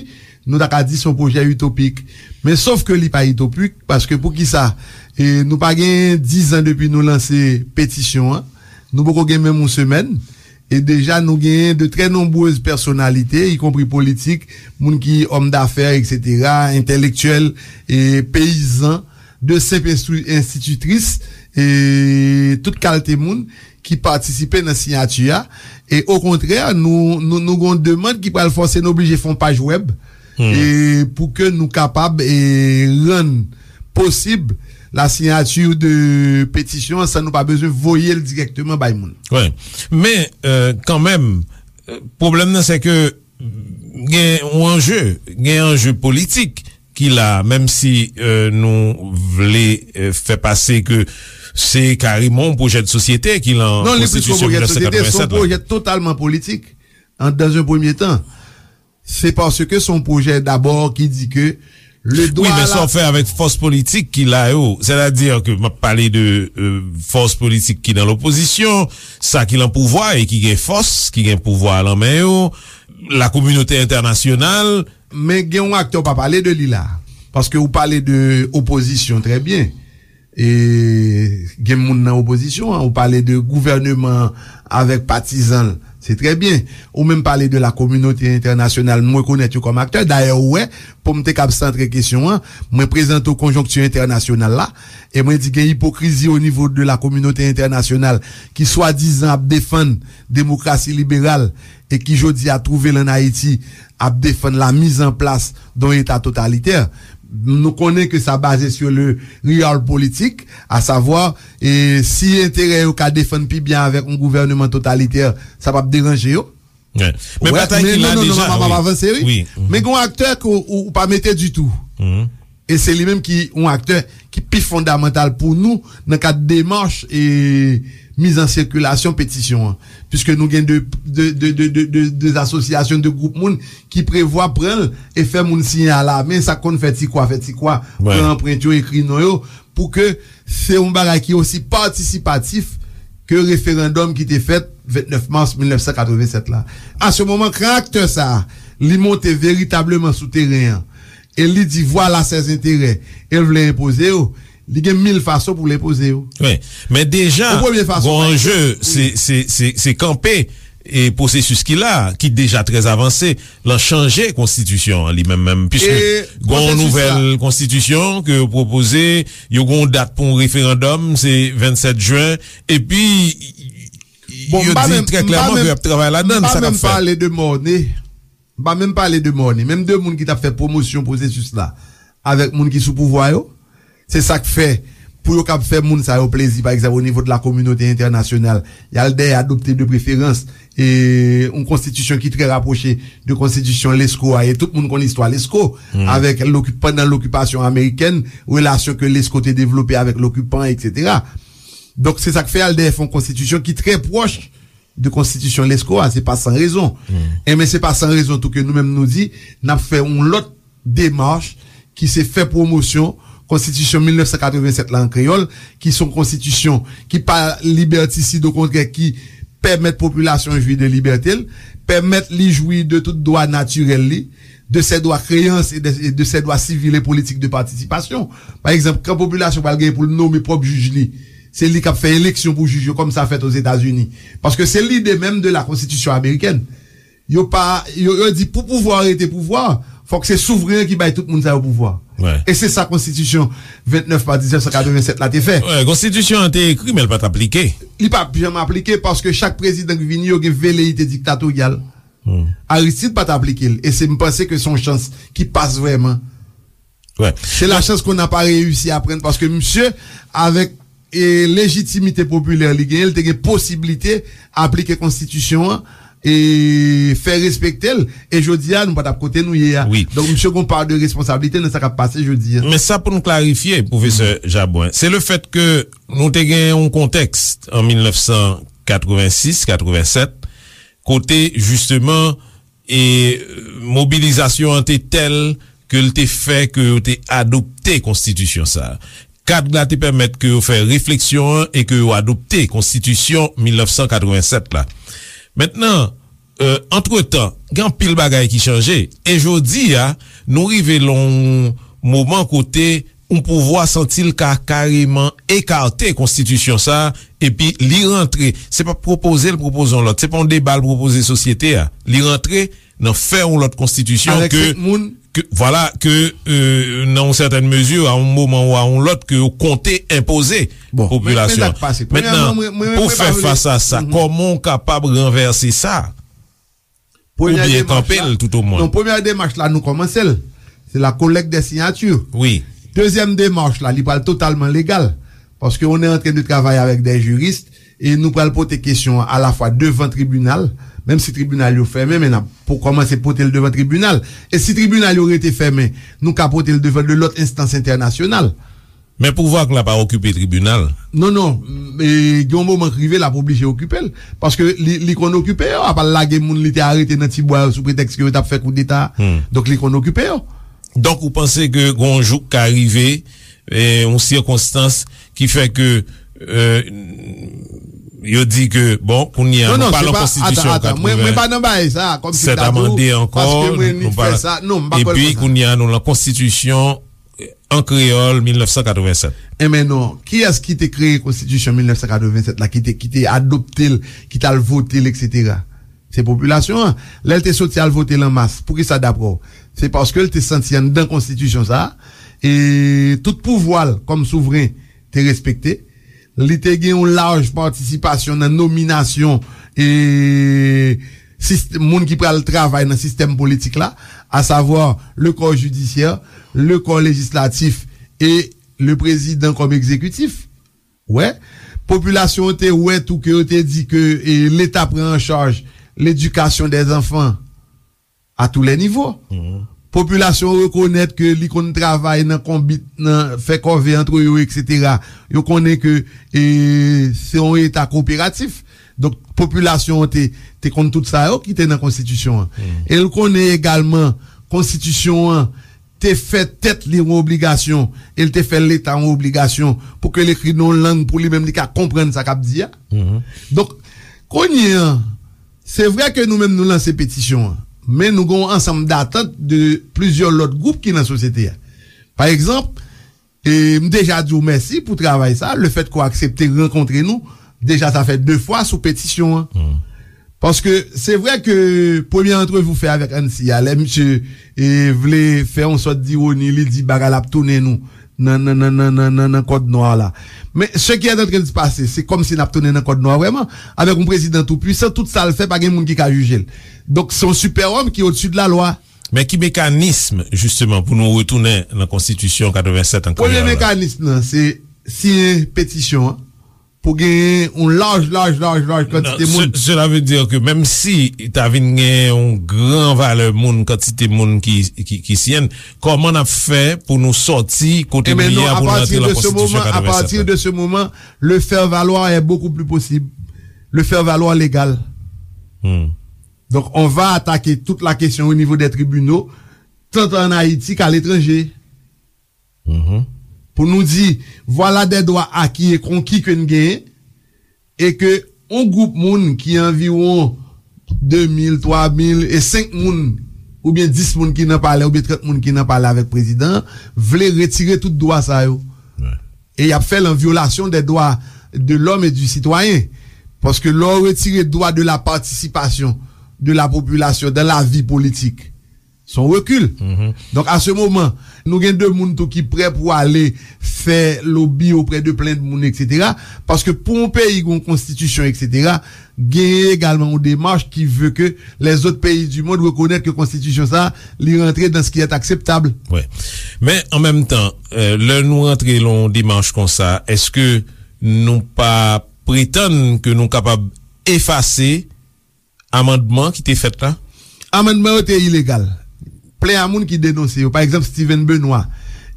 nou ta ka di se yon pwojè itopik. Men sof ke li pa itopik, paske poukisa, e, nou pa gen diz an depi nou lanse petisyon an. Nou poko gen menm yon semèn. E deja nou genyen de trè nonbrez pèsonalite, ikonpri politik, moun ki òm dafè, etsetera, entèlektyèl, e peyizan, de senp enstri-, enstititris, e tout kalte moun ki patisipe nan siyati a. E okontrè, nou, nou, nou gen yon demann ki pral fòse nou oblije fè yon paj wèb, e pou ke nou kapab, e rann posib la signature de petisyon an san nou pa bezwen voye l dirèkteman bay moun. Wi. Men, euh, kanmenm, euh, pwoblèm nan, se ke gen yon anje, gen anje politik ki la, menm si, euh, nou vle, euh, fè pase ke se kareman yon pwojè de sosyete ki lan Konstitisyon mil nèf san katrevennsèt la. Non, li plis ke yon pwojè de sosyete, se yon pwojè totalman politik, an, dans un premier temps. Se paske se yon pwojè dabò ki di ke le dwa... Wi, men sa w fè avèk fòs politik ki la yo, sètadi ke m ap pale de, euh, fòs politik ki nan lopozisyon, sa ki lan pouvwa e ki gen fòs, ki gen pouvwa a lan men yo, lakominote entènasyonal. Men gen yon aktè w pa pale de li la, paske ou pale de opozisyon, trè byen. E gen moun nan opozisyon an, ou pale de gouvèneman an avèk patizan l, se trè byen. Ou menm pale de la kominote entènasyonal, m rekonèt yo kòm aktè. Dayè, ou wè, pou m te kab santre kesyon an, mwen prezante w konjonkti entènasyonal la, e mwen di gen ipokrizi o nivo de la kominote entènasyonal ki swadizan ap defann demokrasi liberal e ki jodi a twouve l ann Ayiti ap defann la mise en place d'un État totalitaire. Nou konnen ke sa baze sur le realpolitik, à savoir, e si enterè yo ka defann pi byen avèk yon gouvèneman totalitè, sa p ap deranje yo. Men batay ki la deja, wi. Men gen yon aktè ke ou, ou pa mete ditou. E se li menm ki yon aktè ki pi fondamantal pou nou nan kad demach e miz an sikilasyon petisyon an. Piske nou gen de, de, de asosyasyon, de gwoup moun ki prevwa pran l e fè moun siyen a la men, sa k konn fè ti kwa, fè ti kwa, pran anprent yo, ekri non yo, pou ke se yon bagay ki osi patisipatif ke referandòm ki te fèt vennèf mas mil nèf san katrevennsèt la. A se moman, kan aktè sa a, li monte veritableman sou teren an, e li di, vwala sèz enterè, e l vle enpoze yo, li gen mil fason pou l enpoze yo. Wi. Men deja, gon anje, se, se, se, se kanpe e pwosesis ki la, ki deja trè avanse, lan chanje konstitisyon an li menm menm, piske gon nouvèl konstitisyon ke yo pwopoze, yo gon dat pou yon referandòm, se vennsèt jen, epi yo di trè klèman ke y ap travay ladan l, sa k ap fèt. M pa menm pale de mòne. M pa menm pale de mòne. Menm de moun ki t ap fè pwomosyon pwosesis la avèk moun ki sou pouvwa yo. Se sa k fè, pou yo kab fè moun sa yo plezi, pa egzanp, o nivo de la kominote entènasyonal, y al dèyè adopte de preferans, e, yon konstitisyon ki trè rapwoche de konstitisyon Lesko a, e tout moun konn istwa Lesko, avèk loki-, pandan lokipasyon amerikèn, relasyon ke Lesko te devlope avèk lokipan, etsetera. Donk, se sa k fè y al dèyè fè yon konstitisyon ki trè pwòch de konstitisyon Lesko a, se pa san rezon. Enben, se pa san rezon tou ke nou menm nou di, n ap fè yon lòt demach ki se fè pwomosyon konstitisyon mil nèf san katrevennsèt la an kreyòl, ki se yon konstitisyon ki pa libètisid, okontrè, ki pèmèt popilasyon jwi de libète l, pèmèt li jwi de tout dwa natirèl li, de ses droits créances et de, et de ses droits civils et politiques de participation. Pa egzanp, kan popilasyon pral gen pou l nome pwòp jij li, se li k ap fè eleksyon pou jij yo, kòm sa fèt Ozetazini. Paske se lide menm de la konstitisyon amerikèn. Yo pa, yo, yo di pou pouvwa rete pouvwa, fòk se souvren an ki bay tout moun sa yo pouvwa. E se sa konstitisyon vennèf mas mil nèf san katrevennsèt la te fè. Konstitisyon an te ekri, men l pa t aplike. Li pa janm aplike paske chak prezidan ki vini, yo gen veleyite diktatoryal. Aristide pa t aplike l. E se, m panse ke se yon chans ki pas vrèman. Se la chance qu'on n'a pas réussi à prendre, paske misye, avèk e lejitimite popilè li genyen, li te gen posiblite aplike konstitisyon an e fè respekte l. E jodi a, nou pa t ap kote nou ye a. Donk, misye gen yon pa de responsablite nan sa k ap pase jodi a. Men sa pou n klarifye, pwofesè Jabwen, se le fèt ke nou te gen yon kontèks an mil nèf san katrevensis, katrevennsèt, kote, jisteman, e mobilizasyon an te tèl ke l te fè ke yo te adopte konstitisyon sa a. Kad la te pèmèt ke yo fè refleksyon an e ke yo adopte konstitisyon mil nèf san katrevennsèt la. Mentnan, antretan, gen anpil bagay ki chanje. E jodi a, nou rive lan yon moman kote yon pouvwa santi l ka kareman ekate konstitisyon sa a, epi li rantre, se pa pwopoze l pwopoze yon lòt, se pa yon deba l pwopoze sosyete a. Li rantre nan fè yon lòt konstitisyon ke, ke, vwala, ke, nan yon sètèn mezi, a yon moman ou a yon lòt, ke yo konte enpoze popilasyon an. Mentnan, pou fè fas a sa, kòman w kapab ranvèse sa? Oubyen kanpe l, toutomwen. Non, premyè demach la, nou kòmanse l. Se la collecte des signatures. Dezyèm demach la, li pral totalman legal. Paske on est en train de travailler avec des juristes e nou pral pote kesyon an alafwa devan tribinal, menm si tribinal yo fèmen, men n ap pou kòmanse pote l devan tribinal. E si tribinal yo rete fèmen, nou ka pote l devan de lòt enstans entènasyonal. Men pouvwa k la pa okipe tribinal. Non, non. E, gen yon moman k rive, l ap oblije okipe l. Paske li, li konn okipe yo. Apa l lage moun li te arete nan Tibwa yo sou pretèks ke yo t ap fè koudeta. Donk, li konn okipe yo. Donk, ou panse ke gen yon jou k ka rive, e, yon sikonstans ki fè ke, e, yo di ke, bon, kounye a, nou pa lan konstitisyon katreven sèt amande ankò, nou pa lan, epi kounye a, nou lan konstitisyon an kreyòl mil nèf san katreven sèt. Enben non, kiyès ki te kreye konstitisyon mil nèf san katreven sèt la, ki te, ki te adopte l, ki t al vote l, etsetera? Se popilasyon an. Lè l te soti al vote l an mas, poukisa, daprè w? Se paske l te santi anndan konstitisyon sa a, e tout pouvwa l kòm souvren te respekte. Li te gen yon laj patisipasyon nan nominasyon e sist-, moun ki pral travay nan sistèm politik la, asavwa le corps judiciaire, le corps législatif e le président comme exécutif. Wè, popilasyon an te wè tou ke yo te di ke, e, Leta pran an chaj ledikasyon dè zanfan a tou lè nivo. Popilasyon an rekonèt ke li konn travay nan konbit, nan fè kòve antre yo, etsetera. Yo konnen ke, e, se yon Eta koperatif. Donk, popilasyon an te, te konn tout sa yo ki te nan konstitisyon an. E l konnen egalman konstitisyon an te fè tèt li yon obligasyon, e l te fè Leta yon obligasyon pou ke l ekri nan yon lang pou li menm li ka konprann sa k ap di a. Donk, kounye an, se vre ke nou menm nou lanse petisyon an, men nou gen yon ansanm datant de plizyè lòt gwoup ki nan sosyete a. Pa egzanp, e m deja di w mèsi pou travay sa, lefèt ke w aksepte rankontre nou, deja sa fè de fwa sou petisyon an. Paske se vre ke premye antrevi w fè avèk Ansi a, lè misye, e, vle fè yon sòt dironi, li di bagay la ap tounen nou nan, nan, nan kòd nwa la. Men, ce qui est en train de se passer, se kòmsi n ap tounen nan kòd nwa vrèman, avèk yon prezidan tou pwisan, tout sa l fè, pa gen moun ki ka jije l. Donk, se yon sipèwòm ki odsi de la lwa. Men ki mekanism, jisteman, pou nou retounen nan konstitisyon katreven sèt an kreyòl la? Premye mekanism nan, se siyen petisyon an pou genyen yon laj, laj, laj, laj kantite moun. Cela veut dire que menm si ta vin gen yon gran valè moun, kantite moun ki, ki, ki siyen, kòman n ap fè pou nou sòti kote nou ye a, pou nou antre nan konstitisyon katreven sèt la? Enben non, à partir de ce moment, à partir de ce moment, le faire valoir est beaucoup plus possible. le faire valoir légal. Donc, on va attaquer toute la question au niveau des tribunaux, tant en Haïti qu'à l'étranger. Pou nou di, voilà des droits acquis et conquis ke n genyen, e ke yon gwoup moun ki anviwon de mil, twa mil e senk moun, oubyen dis moun ki nan palè, oubyen trant moun ki nan palè avèk prezidan an, vle retire tout dwa sa yo. E y ap fè l an vyolasyon des droits de l'homme et du citoyen. Paske lè w retire droit de la participation de la population dans la vie politique, se yon rekil. Donk, a se moman, nou gen de moun tou ki prè pou ale fè lobi oprè de plen de moun, etsetera. Paske pou yon peyi gen yon konstitisyon, etsetera, genyen egalman yon demach ki ve ke lèzòt peyi di mond rekonèt ke konstitisyon sa a, li rantre dans ce qui est acceptable. Men, an menm tan, lè nou rantre lan yon demach konsa, èske nou pa pretann ke nou kapab efase amandman ki te fèt la? Amandman yo te ilegal. Plen a moun ki denonse yo, pa egzanp Steven Benoît,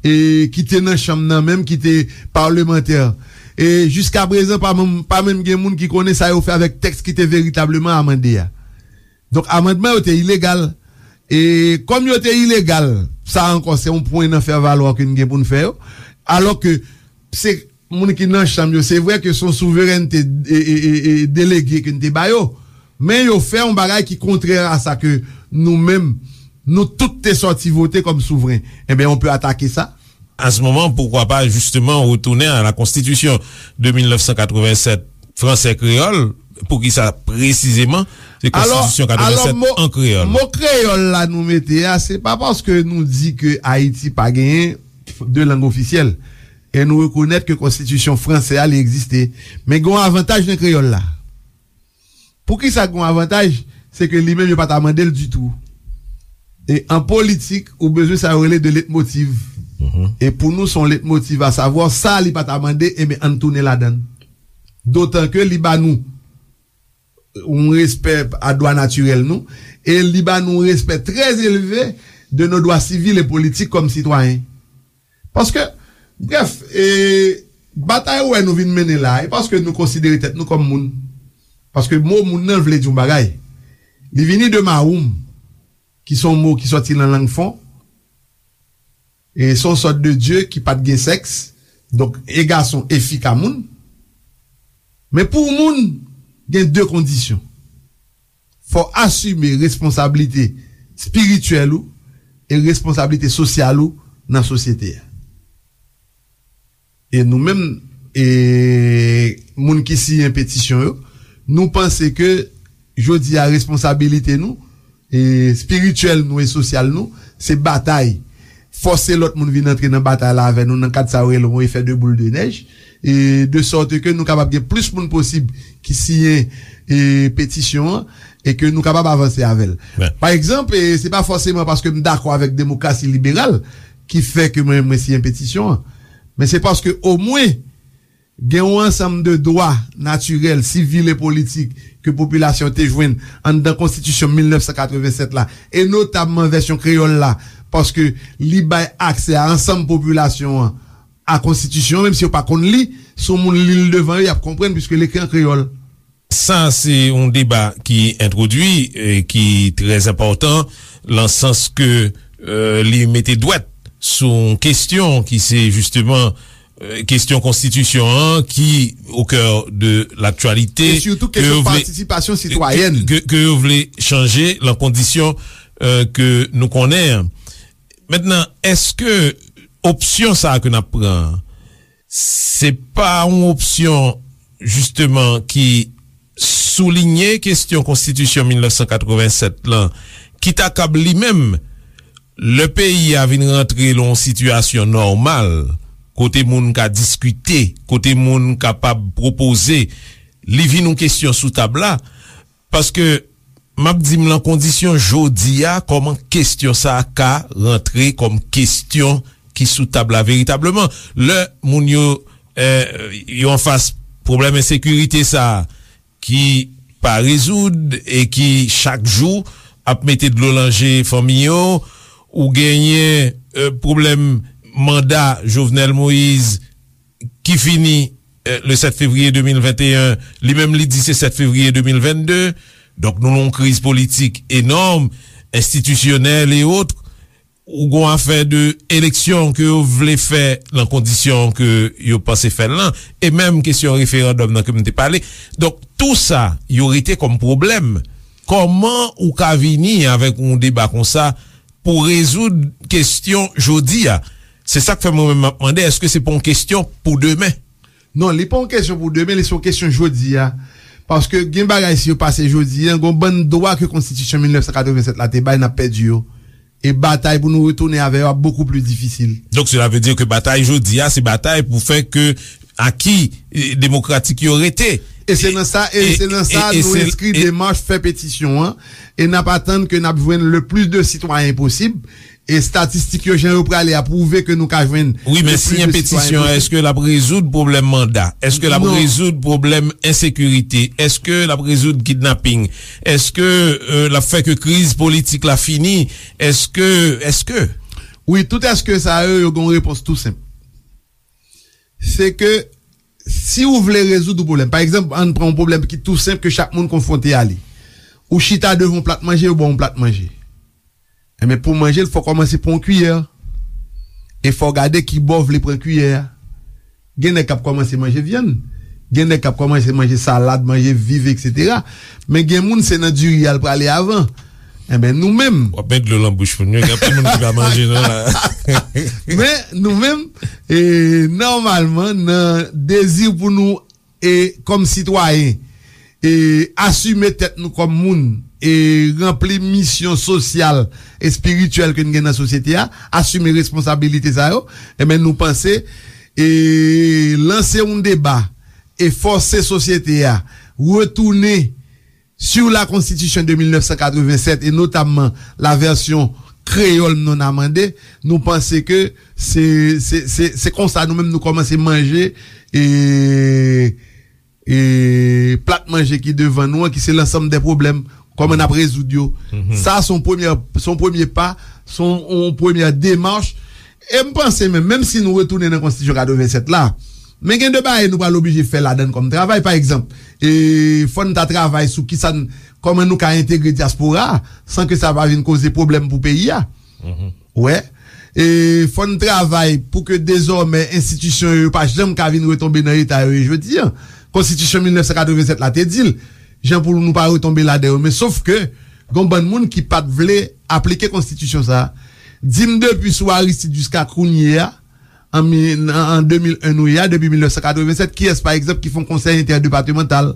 e ki te nan chanm nan menm, ki te palmantè, e jiskaprezan pa menm, pa menm gen moun ki konnen sa yo fè avèk tèks ki te veritableman amande a. Donk, amandman yo te ilegal. E kòm yo te ilegal, sa ankò se yon pwen nan fè valwa ke n gen pou n fè yo. Alò ke se moun ki nan chanm yo, se vre ke se yon souverènte e, e, e, e, delege ke n te ba yo, men yo fè yon bagay ki kontrè a sa ke nou menm, nou tout te sòti vote kòm souvren. Enben, on peut attaquer ça. À ce moment, pourquoi pas justement retourner à la constitution de mil nèf san katrevennsèt fransè kreyòl? Poukisa presizeman se konstitisyon katrevennsèt an kreyòl? Mo kreyòl la nou mete a, se pa paske nou di ke Ayiti pa genyen de lang ofisyèl. E nou rekonèt ke konstitisyon fransè a, li egziste. Men gen yon avantaj nan kreyòl la. Poukisa gen yon avantaj? Se ke li menm, yo pa ta mande l ditou. E an politik, ou bezwen sa yo rele de letmotiv. E pou nou, se yon letmotiv, asavwa, sa li pa ta mande, enben, ann tounen ladan l. Dotan ke li ba nou yon respè a dwa natirèl nou, e li ba nou yon respè trè elve de nos droits civils et politiques comme citoyens. Paske, brèf, e, batay ou wè nou vin mennen la, e paske nou konsidere tèt nou kòm moun. Paske mo moun nan vle di yon bagay. Li vini de mawoum, ki se yon mo ki sòti nan lang fon, e se yon sòt de dye ki pa t gen sèks, donk e gason e fi ka moun. Men pou moun, gen de kondisyon. Fò w asime responsablite espirityèl ou e responsablite sosyal ou nan sosyete a. E nou menm, e moun ki siyen petisyon yo, nou panse ke jodi a responsabilite nou, e espirityèl nou e sosyal nou, se batay. Fòse lòt moun vin antre nan batay la avè nou nan kad sa yo rele yon efè de boul de nèj, e de sòt ke nou kapab gen plis moun posib ki siyen, e, petisyon an, e ke nou kapab avanse avè l. Pa egzanp, e, se pa fòseman paske m dakò avèk demokrasi liberal ki fè ke mwen, mwen siyen petisyon an, men se paske omwen gen yon ansanm de dwa natirèl, sivil e politik ke popilasyon te jwenn anndan konstitisyon mil nèf san katrevennsèt la, e notabman vèsyon kreyòl la, paske li bay aksè a ansanm popilasyon an a konstitisyon an, menm si yo pa konn li, si yon moun li l devan yo, y ap konprann, piske l ekri an kreyòl. Sa se yon deba ki entwodui, e ki trè enpòtan, lan sans ke, e, li mete dwèt sou yon kesyon ki se jisteman, e, kesyon konstitisyon an ki au cœur de l'actualité, e sitou kesyon patisipasyon sitwayèn, ke, ke yo vle chanje lan kondisyon, e, ke nou konnen an. Mentnan, èske opsyon sa a ke n ap pran an, se pa yon opsyon, jisteman, ki soulinye kesyon konstitisyon mil nèf san katrevennsèt lan, ki ta kab li menm, lè peyi a vin rantre lan yon sitiyasyon nòmal, kote moun ka diskite, kote moun kapab pwopoze, li vin yon kesyon sou tab la, paske m ap di m lan kondisyon jodi a, kòman kesyon sa a ka rantre kòm kesyon ki sou tab la veritableman? Lè moun yo, e, yo anfas pwoblèm ensekirite sa a ki pa rezoud e ki chak jou ap mete dlo lan je fanmi yo, ou genyen, e, pwoblèm manda Jovenel Moïse ki fini eh, le sèt fevriye de mil venteyen, li menm li di se sèt fevriye de mil vennde. Donk, nou nan yon kriz politik enòm, enstitisyonèl e ot. Ou gon afè de eleksyon ke yo vle fè nan kondisyon ke yo panse fè l lan, e menm kesyon referandòm nan ke m te pale. Donk, tou sa, yo rete kòm pwoblèm. Kòman ou ka vini avèk yon deba konsa pou rezoud kesyon jodi a? Se sa k fè mwen menm m ap mande, èske se pa yon kesyon pou demen? Non, li pa yon kesyon pou demen, li se yon kesyon jodi a. Paske gen bagay, si yo pase jodi a, gon bann dwa ke konstitisyon mil nèf san katreven sèt la te bay, n ap pèdi yo. E batay pou nou retounen avè yo ap bokou pli difisil. Donk, cela veut dire que batay jodi a, se batay pou fè ke aki, eh, demokratik yo rete. E se nan sa, e se nan sa nou enskri demach, fè petisyon an, e n ap atann ke n ap jwenn le plis de sitwayen posib. E estatistik yo, jan yo prale a, pwouve ke nou ka jwenn le plis de sitwayen posib. Wi, men siyen petisyon an, èske l ap rezoud pwoblèm manda? Èske l ap rezoud pwoblèm ensekirite? Èske l ap rezoud kidnaping? Èske, euh, l ap fè ke kriz politik la fini? Èske, èske? Wi, tout èske sa yo, yo gen yon repons tou senp. Se ke si ou vle rezoud yon pwoblèm, pa egzanp, ann pran yon pwoblèm ki tou senp ke chak moun konfwonte a li. Ou chita devan yon plat manje, yo ba w yon plat manje. Enben, pou manje l, fò w kòmanse pran yon kiyè. E fò w gade ki bò w vle pran kiyè a. Gen nèg k ap kòmanse manje vyann. Gen nèg k ap kòmanse manje salad, manje viv, etsetera. Men gen moun, se nan diri a l prale avan. Enben, nou menm. W ap met dlo nan bouch moun yo. Gen anpil moun ki pa manje, non, la. Men, nou menm, e, nòmalman, nan dezi pou nou e kòm sitwayen, e asime tèt nou kòm moun, e ranpli misyon sosyal, espirityèl ke n gen nan sosyete a, asime responsabilite sa yo, enben, nou panse, e lanse yon deba, e fòse sosyete a retounen sur la Constitution de mil nèf san katreven sèt, e notamman la version créole non amendée, nou panse ke se, se, se, se konsa nou menm nou kòmanse manje, e, e plat manje ki devan nou an, ki se lansanm de pwoblèm, kòman n ap rezoud yo. Sa se yon premye, se yon premye pa, se yon, yon premye demach. E m panse menm, menm si nou retounen nan konstitisyon katreven sèt la, men gen de bagay nou pral oblije fè ladann kòm travay. Pa egzanp, e, fò n ta travay sou kisa n, kòman nou ka entegre dyaspora a, san ke sa pa vin koze pwoblèm pou peyi a. Wè. E fò n travay pou ke dezòmè enstitisyon yo, yo pa janm ka vin retonbe nan eta yo ye jodi a. Konstitisyon mil nèf san katreven sèt la te di l, jan pou nou pa retonbe ladan yo. Men sof ke, gon bann moun ki pa t vle aplike konstitisyon sa a. Di m depi sou Aristide jiska kounye a, an mi-, an, an de mil en nou ye a, depi mil nèf san katreven sèt, kiyès, pa egzanp, ki fè yon konsèy entèdepatemantal?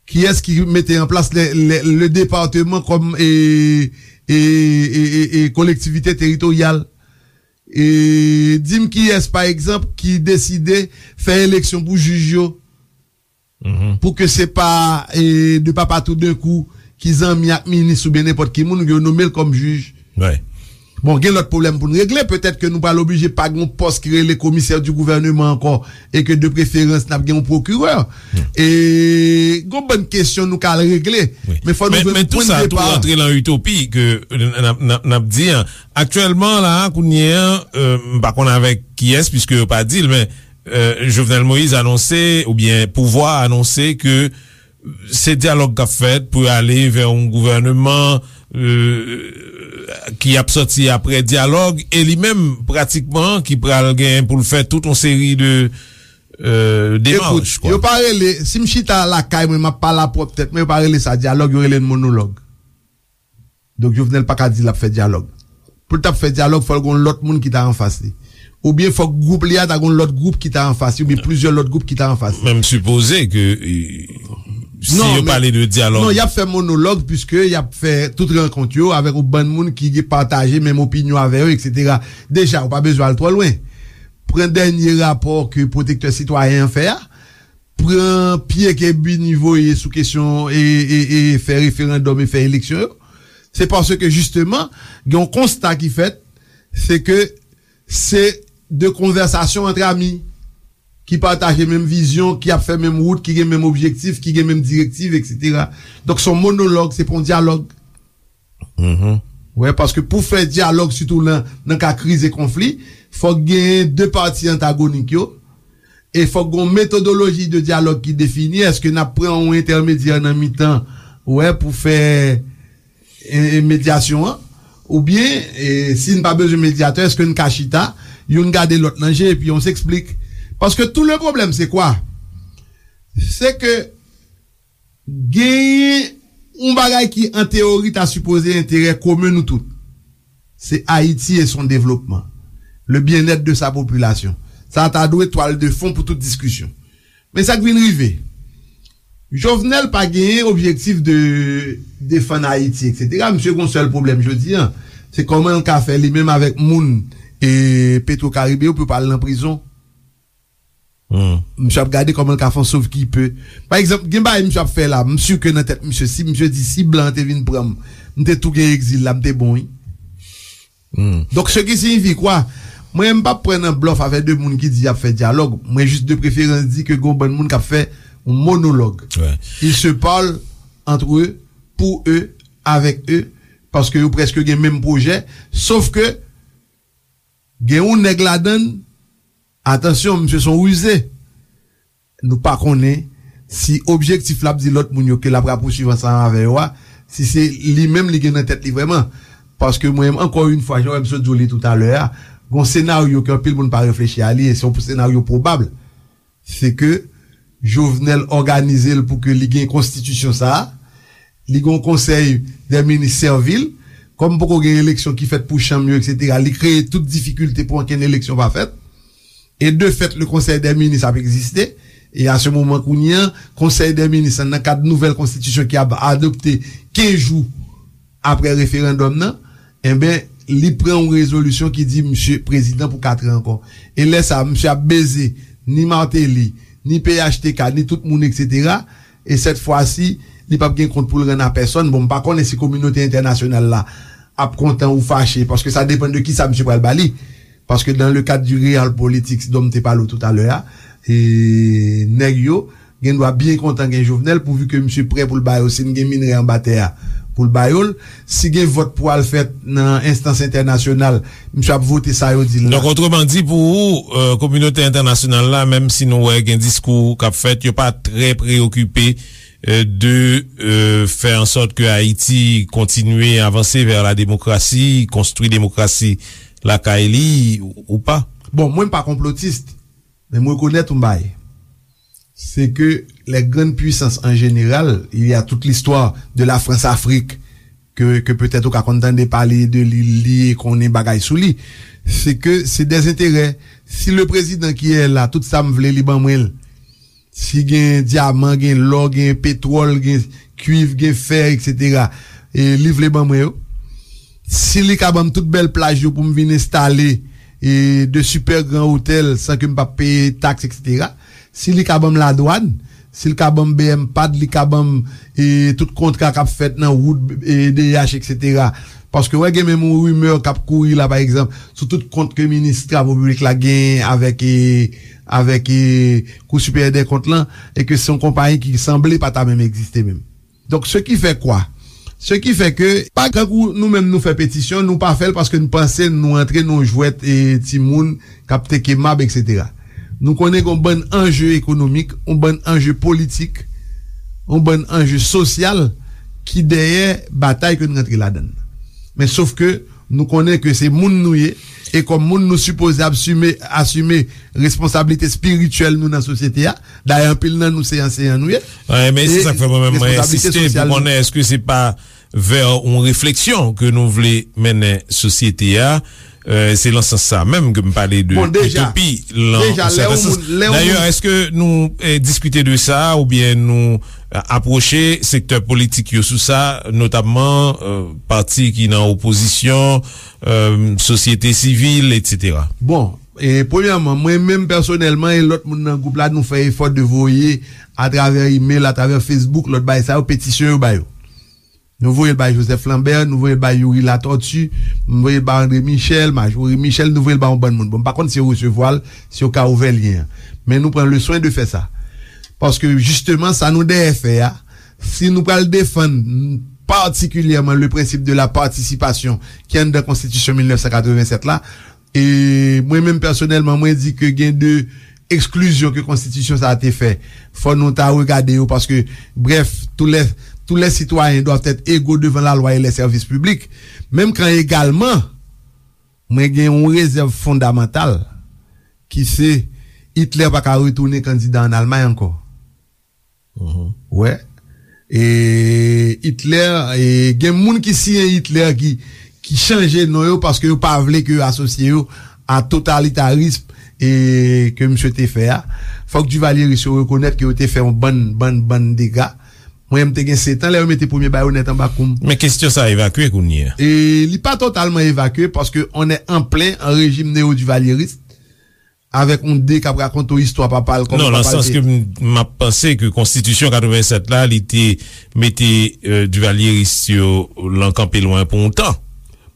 Kiyès ki mete an plas le, le, le département kòm, e, e, e, e, e kolektivite teritoryal? E, di m kiyès, pa egzanp, ki deside fè eleksyon pou jij yo? Pou ke se pa, e, de papa toudenkou ki zanmi ak minis oubyen nenpòt ki moun, yo nome l kòm jij. Bon, gen lòt pwoblèm pou n regle. Petèt ke nou pral oblije pa gen yon pòs ki rele komisè di gouvèneman ankò, e ke de preferans n ap gen yon pwokirè. E gon bann kesyon nou ka al regle. Men fò nou jwenn pwen de depa. Men tou sa tou rantre lan itopi ke n ap, n ap, n ap di an. Aktyèlman la, kounye an, euh, m pa konn avèk kiyès, piske yo pa di l, men, euh, Jovenel Moïse anonse, oubyen pouvwa a anonse ke se dyalòg k ap fèt pou ale vè yon gouvèneman, euh, ki ap sòti apre dyalòg, e li menm, pratikman, ki pral gen pou l fè tout yon seri de, euh, demach, kwa. Yo pa rele, si m chita lakay mwen, m ap pale a pwòp tèt mwen, yo pa rele sa dyalòg, yo rele l monològ. Donk, Jovenel pa ka di l ap fè dyalòg. Pou l t ap fè dyalòg, fò l gon lòt moun ki ta anfas li. Oubyen fòk gwoup li a ta gon lòt gwoup ki ta anfas li, oubyen plizyè lòt gwoup ki ta anfas li. Men m sipoze ke, e, si yo pale de dyalòg. Non, y ap fè monològ, piske y ap fè tout rankont yo avèk yon bann moun ki pataje menm opinyon avè yo, etsetera. Deja, ou pa bezwen al twò lwen. Pran dènye rapò ke Pwotektè Sitwayen an fè a, pran pye ke Bini voye sou kesyon e, e, e fè referandòm e fè eleksyon yo, se paske jisteman, gen yon konsta ki fèt, se ke se de konvèsasyon ant ami ki pataje menm vizyon, ki ap fè menm wout, ki gen menm objektif, ki gen menm direktiv, etsetera. Donk, se yon monològ, se pa yon dyalòg. Wè, paske pou fè dyalòg, sitou nan, nan ka kriz e konfli, fòk genyen de pati antagonik yo, E fòk gen yon metodoloji de dyalòg ki defini. Èske n ap pran yon entèmedyè nan mitan, wè, pou fè e, e, medyasyon an? Oubyen, e, si n pa bezwen medyatè, èske n ka chita, youn gade lòt nan je, epi on s'explique? Paske tout le problème, c'est quoi? Se ke genyen yon bagay ki, an teyori, ta sipoze enterè komen nou tout. Se Ayiti e son devlopman. Le bien-être de sa population. Sa ta dwe twal de fon pou tout diskisyon. Men sa k vin rive, Jovenel pa genyen objektif de defann Ayiti, et cetera. Misye gon sèl pwoblèm jodi a, se kòman l ka fè li menm avèk moun e Petro Caribe yo pou yo pa al nan prizon. Misye ap gade kòman l ka fè yon sov ki pe. Pa egzanp, gen bagay misye ap fè la, m si ke nan tèt misye, si misye di si blan an te vin pran m, m te tou gen egzil la, m te bon, wi. Donk, ce qui signifie quoi? Mwen, m p ap pran nan blòf avèk de moun ki di y ap fè dyalòg. Mwen jis de preferans di ke gon bann moun k ap fè yon monolog. Ils se parlent entre eux, pour eux, avec eux, paske yo prèske gen menm pwojè. Sof ke gen yon nèg ladann, atansyon, misye se yon rize. Nou pa konnen si objektif l ap di lòt moun yo ke l ap rapousuiv ansanm avè yo a, si se li menm li gen nan tèt li vrèman. Paske mwen menm, ankò yon fwa, jan w wè m sot di w li toutalè a, gon senaryo ke anpil moun pa reflechi a li, e se yon senaryo pwobab. Se ke Jovenel òganize l pou ke li gen konstitisyon sa a, li gen yon konsèy dè minis sèvil, kòm poko gen eleksyon ki fèt pou chanm yo, et cetera, li kreye tout difikilte pou ankenn eleksyon pa fèt. E de fèt, le konsèy dè minis ap egziste. E a se moman kounye a, konsèy dè minis lan, nan kad nouvèl konstitisyon ki ap adopte kenz jou apre referandòm nan, enben, li pran yon rezolisyon ki di misye prezidan pou kat an ankò. E lè sa a, misye ap beze ni Martelly, ni P H T K, ni tout moun, et cetera. E sèt fwa si, li p ap gen kont pou l rann a pèsòn. Bon, m pa konnen si kominote entènasyonal la ap kontan ou fache, paske sa depann de kisa misye pral ba li. Paske dans le cadre du real politics dont m te pale w toutalè a, e nèg yo gen dwa byen kontan gen Jovenel pouvi ke misye prè pou l ba yo, si n gen minerè anba tè a, pou l ba yo l. Si gen vòt pou al fèt nan enstans entènasyonal, misye ap vote sa yo di l la. Donk, otreman di, pou ou, euh, kominote entènasyonal la, menm si nou wè gen diskou k ap fèt, yo pa trè preyokipe, euh, de, euh, fè an sòt ke Ayiti kontinye avanse vè la demokrasi, konstwi demokrasi lakay li, ou pa? Bon, mwen m pa konplotis, men m rekonèt yon bagay. C'est que les grandes puissances en général, il y a toute l'histoire de la France-Afrique, ke, ke petèt ou ka konn tande pale de li, li konnen bagay sou li. Se ke se dè enterè. Si le prezidan ki è la, tout sa m vle, li ban mwen l. Si gen dyaman, gen lò, gen petwòl, gen kwiv, gen fè, et cetera, e li vle ban mwen yo. Si li ka ban m tout bèl plaj yo pou m vin enstale, e, de super gran otèl san ke m p ap peye taks, et cetera. Si li ka ban m ladwàn, si l ka ban m B M pad, li ka ban m, e, tout kontra k ap fèt nan wout, e, D H, et cetera. Paske wè gen menm yon rimè k ap kouri la, pa egzanp, sou tout kont ke minis travo piblik la genyen avèk, e, avèk, e, Kou Siperyè dè Kont lan, e ke se yon konpayi ki sanble pa ta menm egziste menm. Donk, ce qui fait quoi? Ce qui fait que, pa tankou nou menm nou fè petisyon, nou pa fè l paske nou panse nou antre nan yon jwèt, e, timoun k ap teke mab, et cetera. Nou konnen gen yon bann anje ekonomik, yon bann anje politik, yon bann anje sosyal ki dèyè batay ke n rantre ladan l. Men sof ke nou konnen ke se moun nou ye, e kòm moun nou sipoze asime, asime responsablite espirityèl nou nan sosyete a. Dayè, anpil nan nou se anseyan nou ye. Wi, men se sa k fè mwen menm mwen ensiste pou konnen èske se pa vè yon refleksyon ke nou vle mennen sosyete a. Euh, se lan sans sa menm ke m pale de itopi, lan yon sèten sans. Dayè, èske nou, eh, diskite de sa oubyen nou, eh, apwoche sektè politik yo sou sa, notamman, eh, pati ki nan opozisyon, eh, sosyete sivil, et cetera? Bon, e, premyèman, mwen menm pèsonèlman e lòt moun nan gwoup la, nou fè efò de voye atravè email, atravè Facebook, lòt bagay sa yo, petisyon yo ba yo. Nou voye l bay Joseph Lambert, nou voye l bay Youri Latortue, m voye l bay André Michel, Marjorie Michel, nou voye l bay yon bann moun. Bon, m pa konn si yo resevwa l, si yo ka ouvè lyen an. Men nou pran le swen de fè sa. Paske, jisteman, sa nou dèyè fè a, si nou pral defann patikilyèman le principe de la participation ki anndan Konstitisyon mil nèf san katrevennsèt la, e mwen menm pèsonèlman, mwen di ke gen de eksklizyon ke konstitisyon sa a te fè, fò nou ta regade yo, paske, bref, tous les, tous les citoyens doivent être égaux devant la loi et les services publics. Menm kan egalman, mwen gen yon rezèv fondamantal ki se Hitler pa ka retounen kandida an Almay ankò. Wè. E Hitler, e gen moun ki siyen Hitler ki, ki chanje non yo paske yo pa vle ke yo asosye yo a totalitarism e ke misye te fè a. Fòk Duvalyeris yo rekonèt ke yo te fè yon bann, bann, bann dega. Mwen, m te gen sèt an lè yo mete premye bayonèt anba kou m. Men kesyon sa evakye kounye a. E li pa totalman evakye paske on est en plein en régime néo-duvalieriste. Avèk yon de k ap rakonte w istwa papa l, kòman Non, nan papa l sans te ke m, m ap panse ke konstitisyon katrevennsèt la, li te mete, euh, Duvalyeris yo lan kanpe lwen pou yon tan.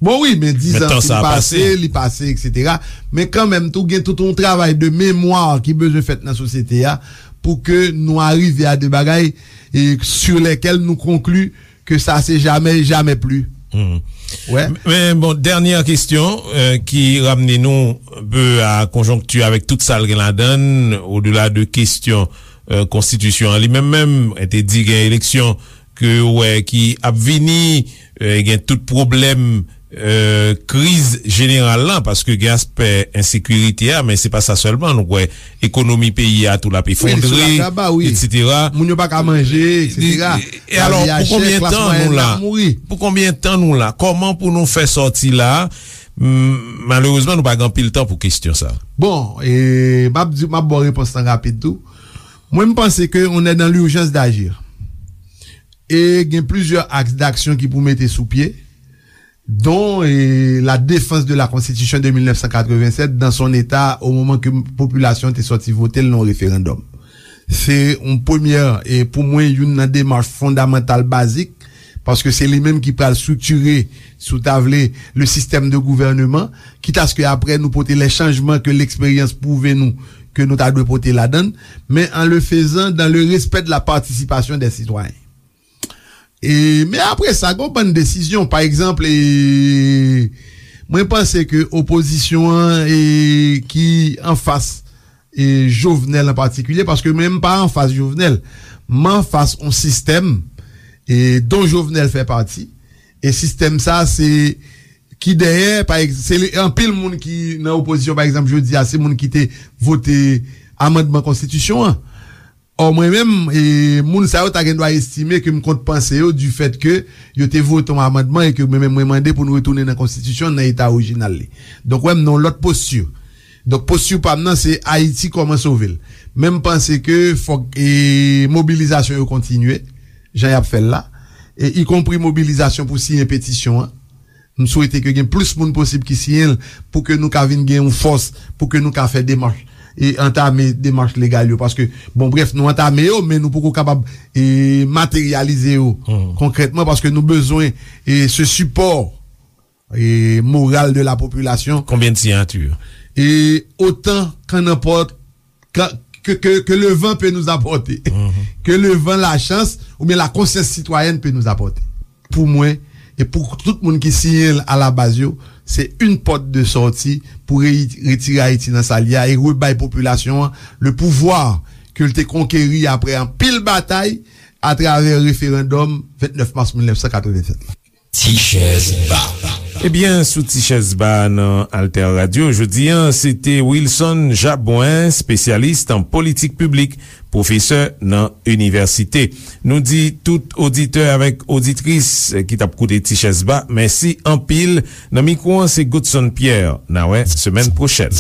Bon, wi, men dizan sa fin pase, li pase, et cetera. Men kanmenm, tou gen tout yon travay de memwa ki bezwen fèt nan sosyete a pou ke nou arive a de bagay e sur lesquels nou konkli ke sa se jamè, jamè pli. Wè. Men bon, dènyè kesyon, euh, ki ramne nou un peu a konjonkti avèk tout sa l gen ladan l, odela de kesyon, euh, konstitisyon an li menm menm, te di gen eleksyon ke yo wè ki ap vini, euh, gen tout pwoblèm, euh, kriz jeneral la, paske gen aspè ensekirite a, men se pa sa sèlman, nou wè ekonomi peyi a tou l ap efondre, et cetera. Moun yo pa ka manje, et cetera. E alò, pou konbyen tan nou la? Pou konbyen tan nou la? Kòman pou nou fè sòti la? Malerezman, nou pa gen anpil tan pou kesyon sa. Bon, e m ap di, m ap ba w repons lan rapid tou. Mwen, m panse ke on est dans l'urgence d'agir. E gen plizyè aks d'aksyon ki pou mete sou pye, dont, eh, la défense de la Constitution de mil nèf san katrevennsèt dans son état au moment ke popilasyon te sòti vote l nan referandòm. Se yon premyè, e pou mwen, youn nan demach fondamantal bazik, paske se li menm ki pral striktire, si w ta vle, le système de gouvernement, kitaske apre nou pote les changements que l'expérience pwouve nou ke nou ta dwe pote ladan l, men en le faisant dans le respect de la participation des citoyens. E, men apre sa, gen yon bann desizyon. Pa egzanp, e, mwen panse ke opozisyon an, e, ki anfas, e, Jovenel an patikilye, paske mwen, m pa anfas Jovenel, m anfas yon sistèm, e, dont Jovenel fè pati. E sistèm sa, se ki dèyè, pa egz-, se li, anpil moun ki nan opozisyon, pa egzanp, jodi a, se moun ki te vote amandman konstitisyon an. Ò, mwen menm, e, moun sa yo ta gen dwa estime ke m kont panse yo, du fait ke yo te vote yon amandman e ke mwen menm mwen mande pou n retounen nan konstitisyon nan eta orijinal li. Donk, wè, m nan yon lòt posti. Donk, posti pa m nan, se Ayiti kòman sove l. Men m panse ke fòk, e, mobilizasyon yo kontinye, jan y ap fè l la, e ikonpri mobilizasyon pou siyen petisyon an. M swete ke gen plis moun posib ki siyen l pou ke nou ka vin gen yon fòs, pou ke nou ka fè demach, e antame demach legal yo. Paske, bon, bref, nou antame yo, men nou poko kapab, e, materyalize yo konkrètman, paske nou bezwen, e, se sipò, e, moral de la popilasyon. Konbyen de siyati? E otan qu'en emporte que, que, que, que le vent peut nous apporter. Que le vent, la chance, oubyen la conscience citoyenne peut nous apporter. Pou mwen, e pou tout moun ki siyen l a la baz yo, se yon pòt de sòti pou re-, retire Ayiti nan sa l ye a e rebay popilasyon an le pouvwa ke l te konkeri apre anpil batay atravè referandòm vennèf mas mil nèf san katrevennsèt la. Ti chèz ba. Ebyen, sou Ti chèz ba nan Alter Radio, jodi a, se te Wilson Jabouin, espesyalis an politik piblik, pwofesè nan inivèsite. Nou di tout oditè avèk oditris ki t ap koute Ti chèz ba, mèsi anpil. Nan mikwo an, se Godson Pierre. N a wè semèn pwochèn.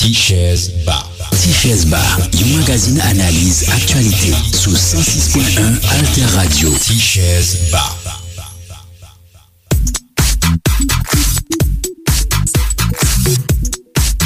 Ti chèz ba. Ti chèz ba, yon magazin analiz aktyalite sou san sis pwen en Alter Radio. Ti chèz ba.